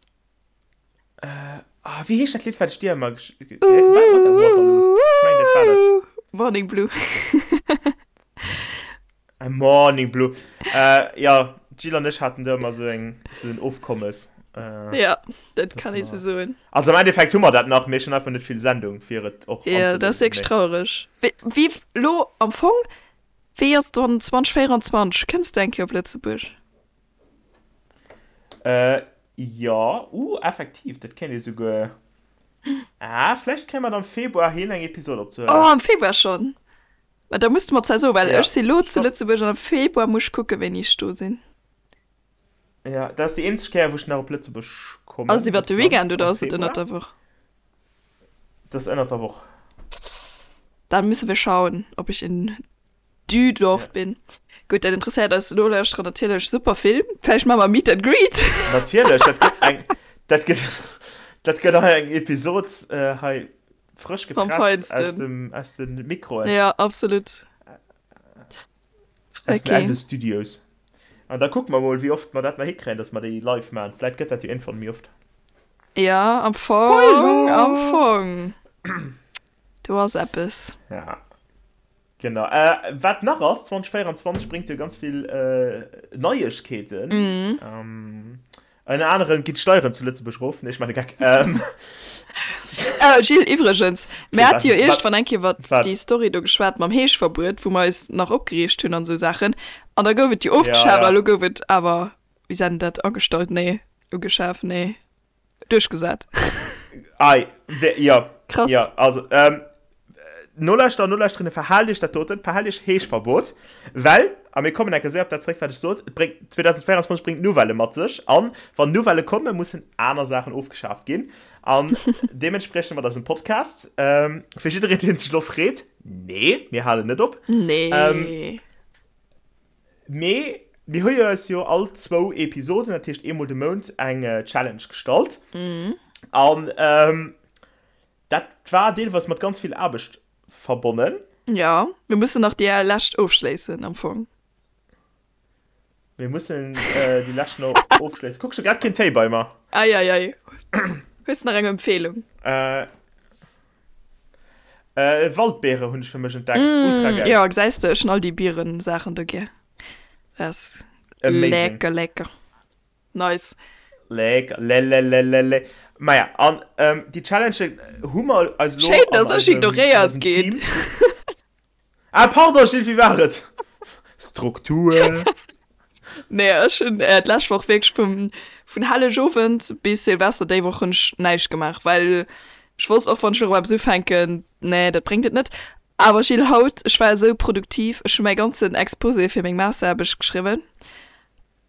C: Äh, ah, wéi heescht dat Lidd, wat ech dir ëmmer gesch... War dat Waterloo? Ech mengen, dat war dat.
B: Morning Blue.
C: Morning Blue. Äh, ja, d'Jill an ech haten do ëmmer esou eng, esou en Ofkommes. Äh,
B: Ja, dat kann ee sou soen.
C: Also am Endeffekt hu mer dat nach, mee ech hunn einfach net vill Sendung, fir et och
B: Ja, dat ass
C: anzeléisen.
B: wierklech
C: Mee
B: trauereg. Wéi, wéi lo am Fong, wéi ass dann 2024? Kënns de eng Kéier op Lëtzebuerg?
C: Äh, jo, uh, effektiv, dat kéint ee souguer. Ah, vläicht kréie mer et am Februar hin, eng Episod
B: Oh,
C: opzehuelen.
B: am Februar schonn? Mä da muss de mer zwar soen, well
C: Ja,
B: ech si lo zu
C: stopp.
B: Lëtzebuerg an am Februar muss ech kucken, wéini ech do sinn.
C: Ja, dat ass déi eenzeg Kéier, wou ech nach op Lëtzebuerg
B: Ass et
C: kommen,
B: iwwer de
C: geplangt,
B: Weekend oder
C: am
B: ass et ënnert
C: Februar.
B: der Woch?
C: Dat ass ënnert der Woch.
B: Dann müssen wir schauen, ob ich in Düdorf
C: Ja.
B: bin. Gutt, dat interesséiert eis Nolauschterer natierlech super vill. Vläicht maache mer Meet and Greet.
C: Natierlech, dat gëtt eng, dat gëtt, dat gëtt hei eng Episod hei frësch
B: Vom
C: gepresst aus
B: Feinsten.
C: dem, aus den Mikroen.
B: Ja, absolut.
C: Aus den
B: Okay.
C: Eldo Studios. An da kucke mer mol, wéi oft mer dat nach hikréien, dass mer déi live maachen. Vläit gëtt dat jo iergendwann méi oft.
B: Ja, am Fong, am
C: Spoiler!
B: Fong. Do ass eppes.
C: Ja. Genau. Äh, wat nach ass, 2024 bréngt jo ganz vill äh, Neiegkeeten.
B: Mhm.
C: Ähm, ënner anerem ginn d'Steieren zu Lëtzebuerg erof. Nee, ech maachen e Geck. Ähm,
B: Äh, Gilles, iwwregens, mir
C: okay,
B: hate jo
C: wat, wat,
B: iergendwann eng Kéier iwwert
C: wat?
B: déi Story do geschwat mam Heeschverbuet, wou mer eis nach opgereegt hunn an esou Saachen. An da gouf et jo
C: Ja,
B: ofgeschaaft a
C: ja.
B: lo gouf et awer, wéi seet een dat, agestallt? Nee, ugeschaf? Nee. Duerchgesat.
C: Ei, jo,
B: Krass.
C: jo, also, ähm, Nolauschterer, Nolauschterinnen, verhaalt iech dat doten, verhaalt iech Heeschverbot, well, a mir kommen enke séier op dat zeréck, wat ech sot, et bréngt, 2024 bréngt Nouvellë mat sech, an wann Nouvellë kommen, mussen aner Saachen ofgeschaaft ginn, an deementspriechend mat eisem Podcast. Ähm, fir jiddereen, deen sech elo freet, nee, mir halen net op.
B: Nee.
C: Ähm, Mee mir hu jo eis jo all zwou Episoden, dat heescht eemol de Mount, eng Challenge gestallt. An dat war deelweis mat ganz vill Aarbecht verbonnen.
B: Jo, mir mussen nach déi lescht ofschléissen am Fong.
C: Mir mussen déi lescht nach ofschléissen. Kuck, ech hu grad keen Téi bei mer.
B: Ei, ei, ei. Hues de nach eng Empfehlung?
C: Äh, Waldbeere hunn ech fir mech entdeckt. Ultra
B: Mm,
C: geil.
B: jo, gesäis de, ech hunn all déi Bieren-Saachen do gär. Dat ass
C: Amazing.
B: lecker, lecker. Nice.
C: Lecker, le le le le le. Maja, an ähm, déi Challenge hu mer eis elo
B: Schéin,
C: an
B: dass ech
C: eisem, an
B: ignoréiert
C: eisem
B: ginn.
C: Team. Ah, pardon, Gilles, wéi war et? Struktur.
B: Nee, ech hunn d'lescht Woch wierklech vum, vun Hellegowend bis Silvester déi Woch hunn ech näischt gemaach, well ech wosst och, wann ech elo erëm eppes ufänken, nee, dat bréngt et net. Awer Gilles, haut, ech war esou produktiv, ech hu mäi ganzen Exposé fir meng Masteraarbecht geschriwwen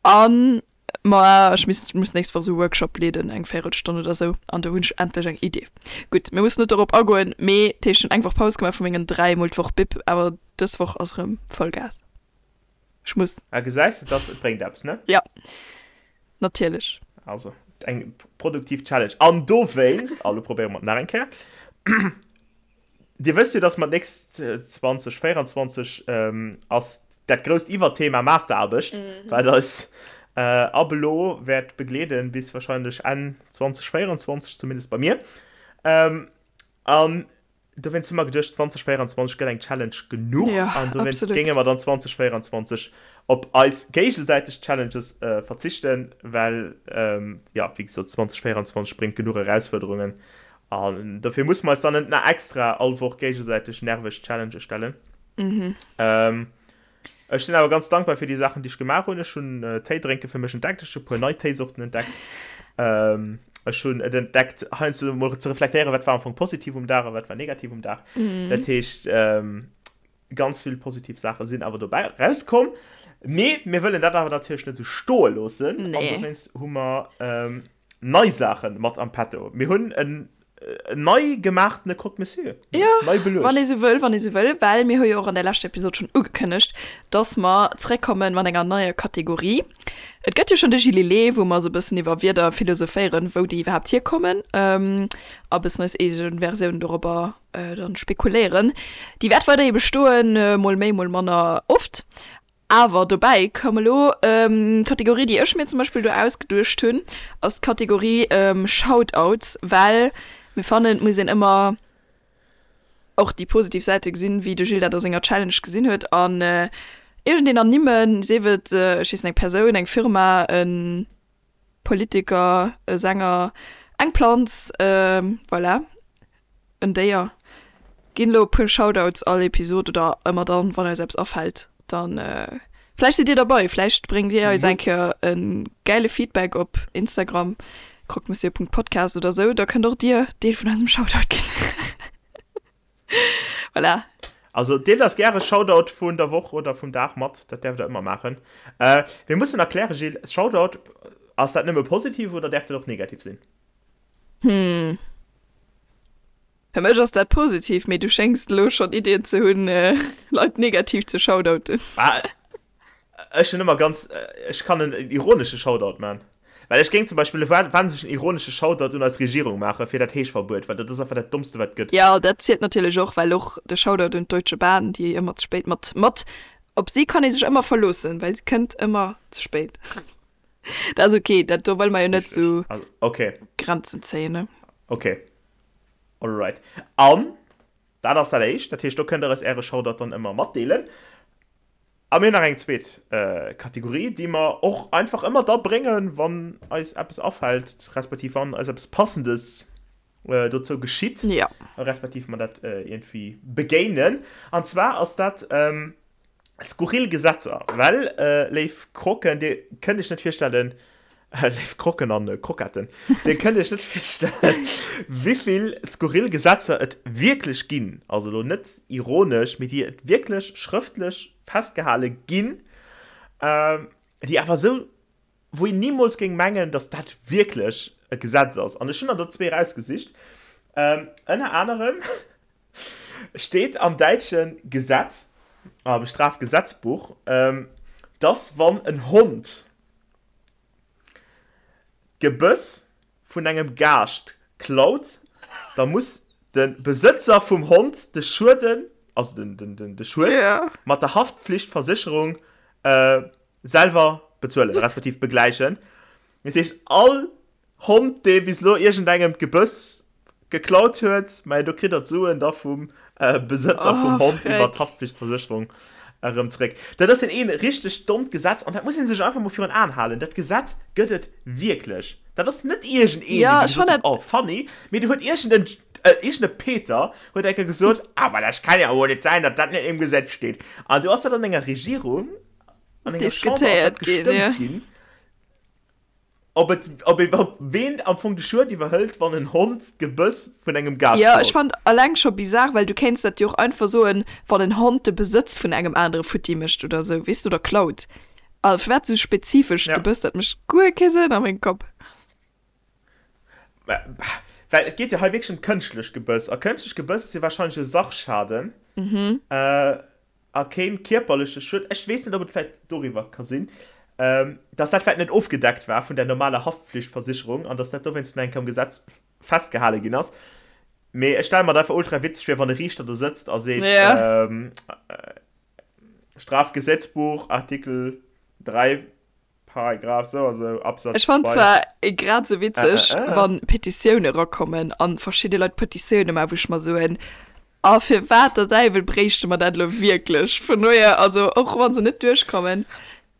B: an ma ech misst, muss nächst Woch esou e Workshop leeden, eng Véierelstonn oder esou, an do hunn ech endlech eng Idee. Gutt, mir mussen net dorop agoen, mee dat heescht, ech hunn eng Woch Paus gemaach vu mengen dräimol d'Woch Bib, awer dës Woch ass erëm Vollgas. Ech muss.
C: Ah, gesäis de, dass et bréngt eppes, ne?
B: Ja, natierlech.
C: Also, eng produktiv Challenge. An dowéinst, a lo probéiere mer et nach eng Kéier, Dir wësst jo, dass mer d'nächst 2024 ass dat grousst Iwwerthema Masteraarbecht, wat eis ab elo wäert begleeden bis wahrscheinlech Enn 2024, zumindest bei mir. An Dowéinst hu mer geduecht, 2024 gëtt eng Challenge genuch
B: Ja,
C: an dowéinst
B: absolut.
C: géinge mer dann 2024 op eis géigesäiteg Challenges verzichten, well, jo, wéi gesot, 2024 bréngt genuch Erausfuerderungen. An dofir musse mer eis dann net nach extra all Woch géigesäiteg nerveg Challengë stellen. Mhm. Ähm, ech sinn awer ganz dankbar fir déi Saachen, déi ech gemaach hunn. Ech hunn äh, Téi drénke fir mech entdeckt. Ech hu puer nei Téisorten entdeckt. Ähm, ech hunn et entdeckt, heiansdo mol ze reflektéieren, wat war am Fong positiv um Dag a wat war negativ um Dag. Mhm. Dat heescht, ähm, Ganz vill positiv Saache sinn awer dobäi rauskomm. Mee mir wëllen dat awer natierlech net esou stoe loossen. An
B: Nee.
C: dowéinst hu mer ähm, nei Saache mat am Petto. Mir hunn en nei gemaachtene Croque Monsieur.
B: Ja,
C: Nei
B: wann
C: beluecht.
B: ee sou wëll, wann ee sou wëll, well mir hu jo och an der leschter Episod schonn ugekënnegt, dass mer zeréckkomme mat enger neier Kategorie. Et gëtt jo schonn de Gililé, wou mer esou e bëssen iwwer Wierder philosophéieren, wou déi iwwerhaapt hierkommen, a e bëssen eis eege Versioun dorobber dann spekuléieren. Déi wäert weiderhi bestoen, mol méi, mol manner oft. Awer dobäi koum elo d'Kategorie, déi ech mir zum Beispill do ausgeduecht hunn, ass d'Kategorie Shoutouts, well mir fannen, et muss een ëmmer och déi positiv Säite gesinn, wéi de Gilles dat a senger Challenge gesinn huet. An iergendeen ernimmen, sief et, ech weess net, eng Persoun, eng Firma, e Politiker, e Sänger, eng Planz, voilà. En Déier. Ginn elo e puer Shoutouts all Episod oder ëmmer dann wann eis eppes afällt, dann vläicht sidd dir derbei, vläicht bréngt dir eis eng Kéier e gäile Feedback op Instagram, croquemessieur.podcast oder sou, da kënnt och dir Deel vun eisem Shoutout ginn. Voilà.
C: Also deelt eis gäre Shoutout vun der Woch oder vum Dag mat, dat däerft der ëmmer maachen. Mir mussen erklären, Gilles, Shoutout, ass dat nëmme positiv oder däerf dat och negativ sinn?
B: Hm. Fir mech ass dat positiv, mee du schéngs elo schonn Iddien ze hunn, Leit negativ ze shoutouten.
C: Ah, ech hunn ëmmer ganz, ech kann en ironesche Shoutout man. Well ech géing zum Beispill e wahnsinnegen ironesche Shoutout un eis Regierung maache fir dat Heeschverbuet, well dat ass einfach dat Dommste wat et gëtt.
B: Jo, dat zielt natierlech och, well och de Shoutout un d'Deutsche Bahn, déi ëmmer ze spéit mat, mat, op si kann ee sech ëmmer verloossen, well se kënnt ëmmer ze spéit. Dat ass ok, dat do wëlle mer jo net sou
C: okay.
B: Grenzen zéien, ne?
C: Ok, alright. An dat ass dat éischt, dat heescht do kënnt der eis äre Shoutout dann ëmmer matdeelen. A mir hunn nach eng zweet Kategorie, déi mer och einfach ëmmer da bréngen, wann eis eppes afält, respektiv wann eis eppes Passendes dozou geschitt,
B: ja.
C: respektiv mer dat iergendwéi begéinen. An zwar ass dat Skurril Gesetzer, well, léif Croquen, dir kënnt iech net virstellen, léif Croquen an Croquetten, dir kënnt iech net virstellen, wéivill skurril Gesetzer et wierklech ginn, also elo net ironesch, mee déi et wierklech schrëftlech festgehale ginn, déi awer esou, wou een nimools géing mengen, datt dat wierklech e Gesetz ass. An ech hunn der do zwee erausgesicht, ënner anerem Steet am däitsche Gesetz, am Strafgesetzbuch, dass wann en Hond d'Gebëss vun engem Gaascht klaut, da muss de Besëtzer vum Hond de Schueden, also de Schued mat der Haftpflichtversécherung selwer bezuelen, respektiv begläichen. Dat heescht, all Hond dee bis elo iergendengem d'Gebëss geklaut huet, mä do kritt der d'Suen da vum Besëtzer vum Hond iwwer d'Haftpflichtversécherung erëm zeréck. Dat ass een richteg dommt Gesetz an dat muss ee sech einfach mol virun Aen halen. Dat Gesetz gëtt et wierklech. Dat ass net iergendeen, dee gesot huet, oh funny, mee do huet iergend e Peter huet eng Kéier gesot, awer dat kann jo wohl net sein, datt dat net im Gesetz steet. An do ass dat an enger Regierung, an enger Chamber ass dat gestëmmt ginn. Ob et, ob ee, ob ween am Fong de Schued iwwerhëlt, wann en Hond d'Gebëss vun engem Gaascht
B: Jo, ech
C: klaut.
B: fannt alleng scho bizar, well du kéints dat jo och einfach soen, wann en Hond de Besëtz vun engem anere futti mécht oder esou, weess de, oder klaut. A firwat esou spezifesch
C: Ja.
B: d'Gebëss? Dat mécht guer kee Sënn a mengem Kapp.
C: Mä, well et geet jo hei wierklech ëm kënschtlech Gebëss, a kënschtlech Gebëss ass jo warscheinlech e Sachschaden. A keen kierperleche Schued, ech weess net ob et vläit doriwwer ka sinn, dass dat vläit net ofgedeckt war vun der normaler Haftpflichtversicherung an dass dat dowéinst no eng Kéier am Gesetz festgehale ginn ass. Mee ech stelle mer dat einfach ultra witzeg vir, wann e Riichter do sëtzt a seet, Strafgesetzbuch, Artikel 3, Paragraph sou a sou, Absatz
B: Ech fannen
C: 2.
B: zwar grad sou witzeg
C: Äh.
B: wann Petitioune rakommen an verschidde Leit Petitioune maachen wou ech mer soen, a firwat der Däiwel bréichte mer dat elo wierklech? Vun dohier, also och wann se net duerchkommen,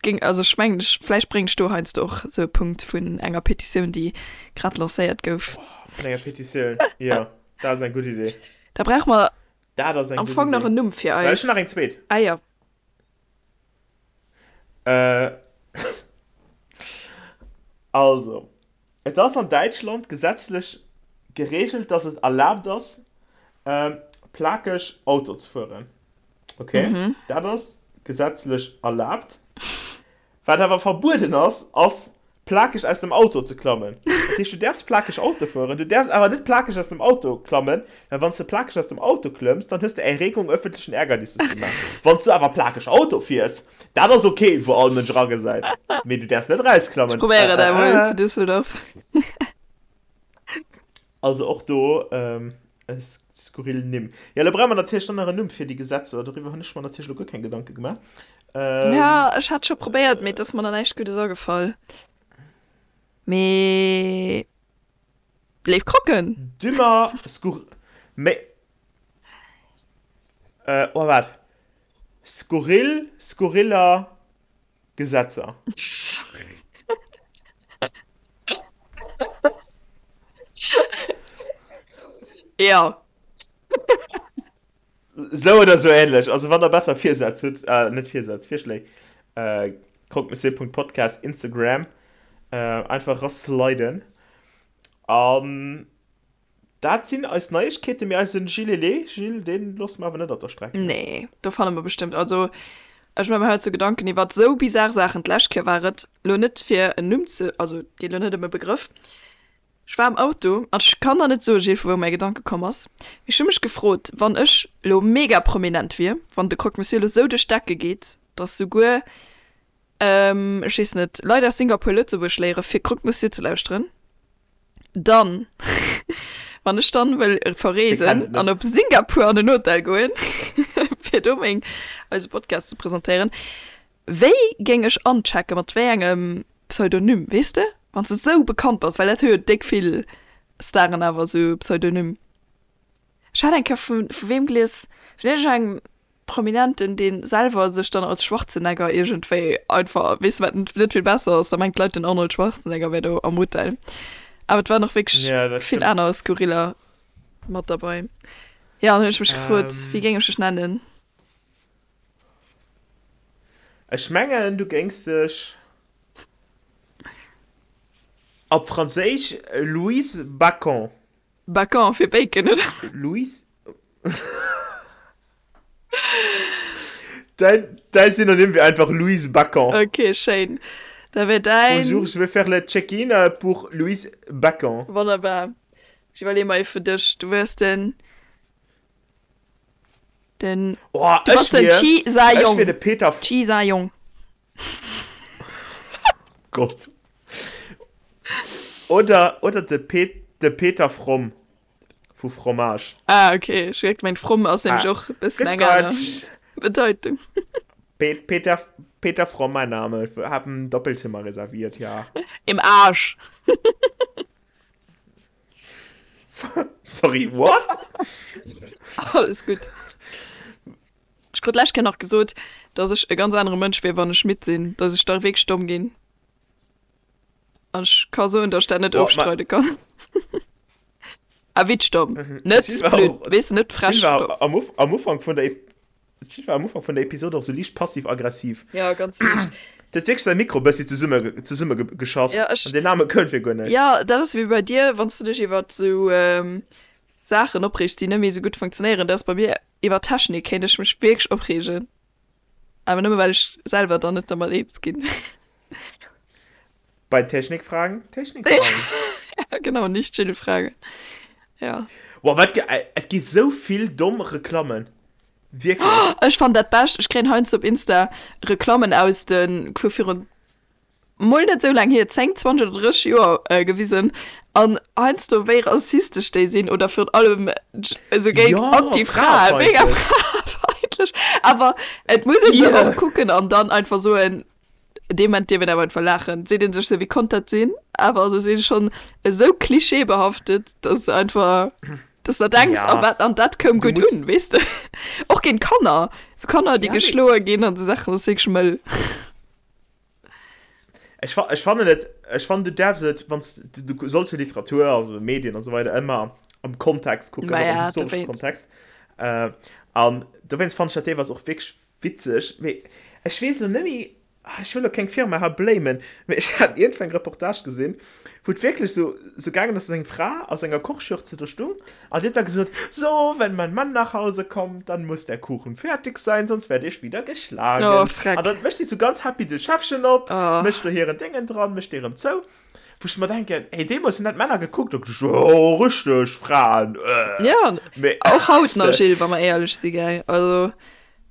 B: géing, also ech mengen ech, vläicht bréngen ech do heiansdo och sou e Punkt vun enger Petitioun déi grad lancéiert gouf.
C: Vun enger Petitioun, jo, dat ass eng gutt Idee.
B: Da brauche mer
C: Dat ass eng
B: am
C: gutt
B: Fong nach
C: Idee.
B: en Numm fir
C: Well ech
B: eis.
C: hunn nach eng zweet.
B: Ah jo.
C: Äh, also, et ass an Däitschland gesetzlech gereegelt, dass et erlaabt ass, plakeg Auto ze fueren. Okay, dat ass gesetzlech erlaabt. Wat awer verbueden ass, ass plakeg aus dem Auto ze klammen. Dat heescht, du däerfs plakeg Auto fueren, du däerfs awer net plakeg aus dem Auto klammen, well wann s de plakeg aus dem Auto klëmms, dann hues de Erregung öffentlichen Ärgernisses gemaach. Wann s du awer plakeg Auto fiers, dat ass ok, wou all Mënsch eragesäit, mee du däerfs net
B: Ech
C: erausklammen.
B: probéiere dat emol zu Düsseldorf.
C: Also och do e skurril Nimm. Jo, elo brauche mer natierlech dann nach en Numm fir déi Gesetzer. Doriwwer hunn ech mer natierlech elo guer keng Gedanke gemaach.
B: Ja, ech hat scho probéiert, mee et ass mer nach näischt Guddes agefall. Mee léif Croquen!
C: Dümmer skur. Méi. Oh, waart. Skurril, skurriller. Gesetzer.
B: Ja.
C: Sou oder sou ähnlech. Also wann der besser Virsätz hutt, äh, net Virsätz, Virschléi, äh, croquemessieur.podcast Instagram, äh, einfach rasliden. An Dat sinn eis Neiegkeeten, mee eisen Gilles, Gilles, deen loosse mer awer net op der Streck.
B: Nee, do fanne mer bestëmmt, also ech maache mer heiansdo Gedanken iwwert esou bizar Saachen. D'lescht Kéier war et lo net fir en Numm ze, also et geet lo net ëm e Begrëff, ech war am Auto an ech kann der net soen, Gilles, vu wou mäi Gedanke komm ass, mee ech hu mech gefrot, wann ech lo mega prominent wier, wann de Croque Monsieur lo sou duerch d'Decke geet, dass souguer, ech weess net, Leit aus Singapur Lëtzebuerg léiere fir Croque Monsieur ze lauschteren. Dann, wann ech dann wëll verreesen an op Singapur an en Hotel goen, fir do meng, eise Podcast ze presentéieren, wéi géing ech anchecken, mat wéi engem Pseudonym, weess de? Wann s de sou bekannt bass, well dat hu jo déck vill Staren awer, sou Pseudonym. Ech hat eng Kéier vu, vu weem gelies, vun iergendengem Prominenten, dee selwer sech dann als Schwarzenegger iergendwéi einfach, weess de, wat net vill besser ass, da mengt d'Leit den Arnold Schwarzenegger wär do am Hotel. Awer et waren och wierklech
C: Ja, dat
B: vill
C: stimmt.
B: aner Skurriller mat derbei. Jo, an hunn ech mech gefrot, wéi
C: Ähm,
B: géing ech dech nennen?
C: ech mengen, du géings dech op Franséisch Louise Bacon.
B: Bacon fir Bacon, oder?
C: Louise. Däin, däin Synonym wier einfach Louise Bacon.
B: Ok, schéin. Da wär däin.
C: Bonjour, je vais faire le check-in euh, pour Louise Bacon.
B: Wonnerbar. Ech iwwerleeë mer ee fir dech. Du wäers den. Den.
C: Oh,
B: Du bass
C: ech
B: den
C: wier,
B: Chi Sa
C: ech wier
B: Yong.
C: de Peter.
B: Chi Sa Yong.
C: Gott. Oder, oder de, Pe de Peter Fromm. Vu Fromage.
B: Ah, ok. Ech hu gemengt, fromm ass nämlech
C: Ah.
B: och e bëssen
C: Grüß
B: eng aner
C: Gott.
B: Bedeutung.
C: Pe Peter, Peter Fromm, mein Name. Ich hab ein Doppelzimmer reserviert, ja.
B: Im Arsch.
C: Sorry, what?
B: Alles gutt. Ech krut d'lescht Kéier nach gesot, dass ech e ganz anere Mënsch wier, wann ech midd sinn, dass ech da wierklech domm ginn. An ech ka soen, dass ech dat net
C: Boah, ma
B: ofstreide kann. A witsch domm,
C: Mhm.
B: net
C: D'Jill war
B: blöd,
C: och,
B: weess de, net
C: d'Jill
B: frech
C: war
B: domm.
C: am Uf am Ufank vun der Ep d'Jill war am Ufank vun der Episode och sou liicht passiv-aggressiv.
B: Ja, ganz liicht.
C: D'huet wierklech säi Mikro bëssi zesumme zesumme ge geschoss
B: Ja, ech,
C: an deen Name koum fir guer näischt.
B: ja, dat ass wéi bei dir, wann s du dech iwwert sou Saachen opreegs, déi net méi sou gutt funktionéieren. Dat ass bei mir iwwer Technik, kéint ech mech wierklech opreegen. Awer nëmme well ech selwer dann net dermat eens ginn.
C: Bei Technikfragen, Technikfragen.
B: Ja, genau, nicht Jill fragen. Ja.
C: Boah, wat ge et gi sou vill domm Reklammen. Wierklech.
B: Ech fannen dat bescht, ech kréien heiansdo op Insta Reklammen aus de vu virun mol net esou laang hier, 10, 20 oder 30 Joer, gewisen an heiansdo wéi rassistesch déi sinn oder virun allem esou géint
C: Jo,
B: Anti-Frae, mega
C: fraefeindlech.
B: fraefeindlech. Awer et muss ee se
C: Yeah.
B: och kucken an dann einfach soen, dee Moment dierf een awer einfach laachen, seet ee sech sou, wéi konnt dat sinn? Awer se si schonn esou klischeebehaftet, dass se einfach, dass der denks, a
C: Ja,
B: wat, an dat koum
C: du
B: gutt
C: muss.
B: un, weess de? Och géint Kanner, sou Kanner, déi
C: Ja, mee
B: geschloe ginn an esou Saachen, dat ass wierklech mëll.
C: Ech, ech fannen et. Ech fannen, du däerfs et, wann s du, du solls jo Literatur, also Medien an esou weider ëmmer am Kontext kucken, och am
B: Maja,
C: historesche
B: dowéinst.
C: Kontext. Äh, an dowéinst fannen ech dat deelweis och wierklech witzeg. Mee ech weess elo net méi, ah, ech wëll elo keng Firma hei blamen, mee ech hat iergendwou eng Reportage gesinn, wou et wierklech esou, esou gaangen ass, dass eng Fra a sou enger Kochschürze do stung an déi huet da gesot, So, wenn mein Mann nach Hause kommt, dann muss der Kuchen fertig sein, sonst werde ich wieder geschlagen.
B: Oh, freck.
C: An dann mécht si sou ganz happy de Schäffchen op,
B: Oh.
C: mécht do hiren Déngen dran, mécht dee rëm zou. Wou ech mer denken, hey, deemools hunn dat d'Männer gekuckt a geduecht, oh, richteg Fraen, äh.
B: Ja,
C: Mee,
B: och haut
C: weess
B: nach,
C: de.
B: Gilles, wa mer éierlech si, gell? Also.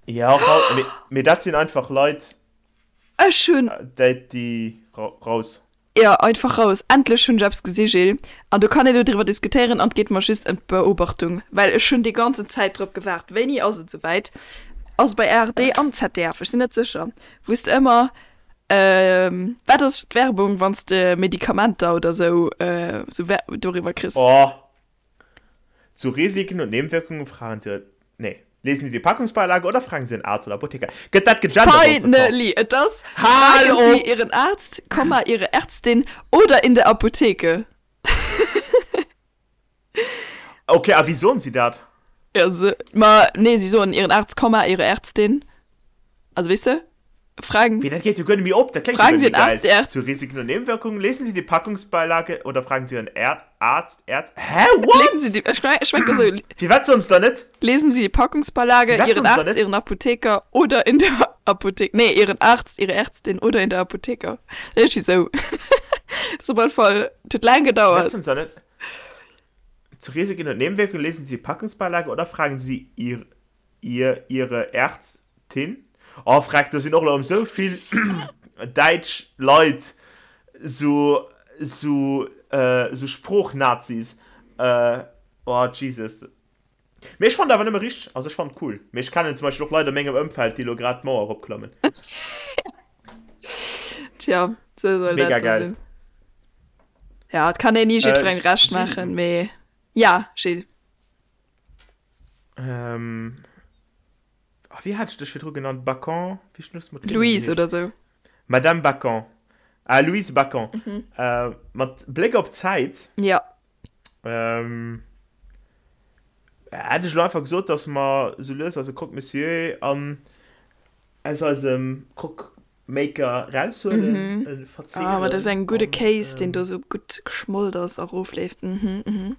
C: Ja, och haut, mee, mee dat sinn einfach Leit,
B: Ech hunn.
C: déi, déi raus.
B: Jo, einfach raus. Endlech hunn ech eppes gesi, Gilles. An do kann een elo driwwer diskutéieren an et geet mer just ëm d'Beobachtung, well ech hunn déi ganzen Zäit drop gewaart. Wéini ass et esouwäit? Ass et bei ARD an ZDF? Ech sinn net sécher. Wou s de ëmmer, wat ass d'Werbung, wann s de Medikamenter oder esou, esou doriwwer kriss?
C: Oh, Zu Risiken und Nebenwirkungen fragen Sie, nee, lesen Sie die Packungsbeilage oder fragen Sie den Arzt oder Apotheker. Gëtt dat gegendert op de Top?
B: Finally! Et ass,
C: Hal
B: Fragen Sie
C: op!
B: Ihren Arzt, Komma, Ihre Ärztin oder in der Apotheke.
C: Okay, a wéi soen si dat?
B: Ja, se, ma nee, si soen Ihren Arzt, Komma, Ihre Ärztin. Also, weess de? Fragen.
C: Wéi, dat geet jo guer net méi op, dat kléngt jo
B: Fragen
C: guer
B: Sie
C: net méi
B: den
C: geil.
B: Arzt, die Ärzt.
C: Zu Risiken und Nebenwirkungen lesen Sie die Packungsbeilage oder fragen Sie Ihren Är Arzt, Ärz Hä, what?
B: Lesen Sie die, ech meng, ech meng, dat ass esou.
C: Firwat soen se da net?
B: Lesen Sie die Packungsbeilage,
C: Firwat
B: Ihren
C: soen se da
B: Arzt,
C: net?
B: Ihren Apotheker oder in der Apotheke, nee, Ihren Arzt, Ihre Ärztin oder in der Apotheker. Iergendwéi esou. Dat ass op alle Fall, et huet laang
C: Firwat
B: gedauert.
C: soen se da net? Zu Risiken und Nebenwirkungen lesen Sie die Packungsbeilage oder fragen Sie Ihr Ihr, Ihre Ärztin? Oh freck, do sinn och elo esou vill däitsch Leit, sou, sou, sou Sproochnazis. Oh Jesus. Mee ech fannen et awer nëmme richteg, also ech fannen et cool. Mee ech kennen zum Beispill och Leit a mengem Ëmfeld, déi elo grad d'Mauer eropklammen.
B: Tja, sou soll
C: Mega
B: dat da
C: geil.
B: sinn. Ja, et kann een ni jiddwerengem Recht
C: Gilles.
B: maachen, mee ja, Gilles.
C: Ähm, oh, wéi hat ech dech virdru genannt? Bacon? Wéi schluss mat Virnumm
B: Louise
C: geheescht?
B: oder sou.
C: Madame Bacon. Ah, Louise Bacon.
B: Mhm.
C: Äh, mat Bléck op d'Zäit.
B: Ja.
C: Ähm, hätt ech elo einfach gesot, dass mer sou lues eise Croque Monsieur an aus eisem Croque Maker raushuelen,
B: Mhm.
C: e
B: Ah, ma dat ass
C: verzehren
B: engem gudde
C: an,
B: Kéis, deen do
C: ähm,
B: sou gutt geschmolt ass a rofleeft. Mhm, mhm.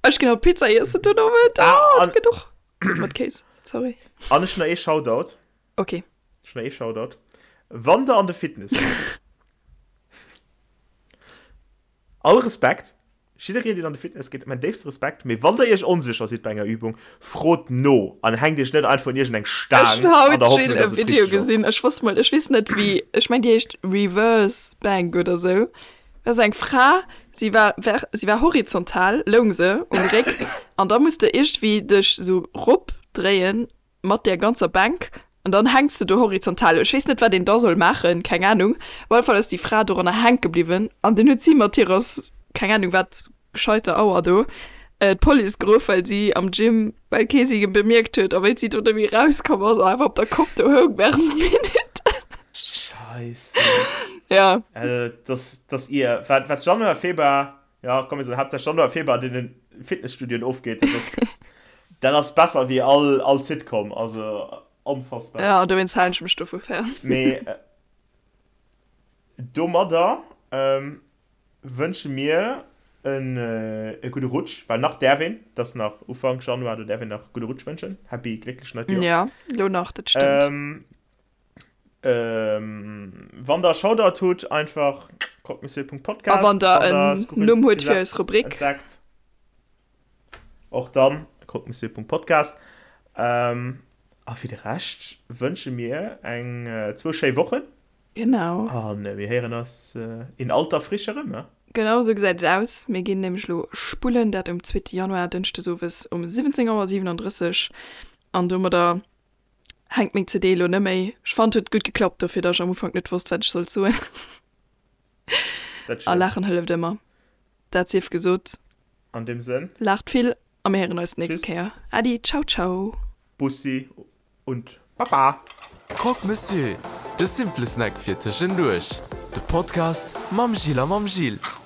B: Ech ginn haut Pizza iessen den Owend.
C: Ah,
B: Oh, dat
C: an,
B: gëtt och gutt mat Kéis. Sorry.
C: an ech hunn nach ee Shoutout.
B: Okay.
C: Ech hunn nach ee Shoutout. Wann der an de Fitness gitt, all Respekt, Jiddereen deen an de Fitness geet, mäin déifste Respekt, mee wann der iech onsécher sidd bei enger Übung, frot no an hänkt iech net einfach un iergend eng
B: Ech
C: Staang
B: hunn
C: an
B: haut
C: der
B: Jill
C: Hoffnung,
B: e
C: dass et
B: Video
C: richteg ass.
B: gesinn, ech wosst mol, ech weess net wéi, ech meng déi heescht Reverse Bank oder sou, dat ass eng Fra, si war ver si war horizontal, loung se um Réck an da muss de iergendwéi dech sou rop dréien mat där ganzer Bänk an dann hänks de do horizontal. Ech weess net wat een da soll maachen, keng Ahnung. Op alle Fall ass déi Fra doranner hänke bliwwen an dunn huet si mat hirer keng Ahnung wat gescheiter Auer do d'Police geruff, well si am Gym, well kee si bemierkt huet a wéi si do net méi rauskomm ass an einfach op der Kopp do houng während Minutten.
C: Scheisse.
B: Ja.
C: Also dass dass ier wat wat Januar Februar Ja, komm, mir soen haaptsächlech Januar, Februar, an deenen Fitnesstudioen ofgeet, dat ass, dat ass besser wéi all, all Sitcom, also onfassbar.
B: Ja, dowéinst halen ech mech dovu fern.
C: Mee domadder wënsche mir en e gudde Rutsch, well nach däerf een, et ass nach Ufank Januar, do däerf een nach gudde Rutsch wënschen, Happy glécklech neit Joer.
B: Ja, elo nach, dat stëmmt.
C: Wann der Shoutout hutt, einfach croquemessieur.podcast.
B: A wann der en Numm hutt fir eis Rubrik.
C: Entdeckt. Och dann croquemessieur.podcast. A fir de Rescht wënsche mir eng zwou schéi Wochen.
B: Genau.
C: A mir héieren eis in alter Frische erëm, ne?
B: Genau esou gesäit et aus. Mir ginn nämlech elo spullen, dat um zweete Januar, dënschdes owes um 17 Auer 37. An domadder Hänkt meng CD elo neméi. Ech fannen et huet gutt geklappt dofir dass ech am Ufank net wosst wat ech sollt soen.
C: Dat
B: A
C: stimmt.
B: laachen hëlleft ëmmer. Dat sief gesot.
C: An deem Sënn.
B: Laacht vill a mir héieren eis d'nächst
C: Tschüss.
B: Kéier. Äddi, ciao ciao.
C: Bussi und Baba.
A: Croque Monsieur, de simple Snack fir tëschenduerch. De Podcast mam Gilles a mam Gilles.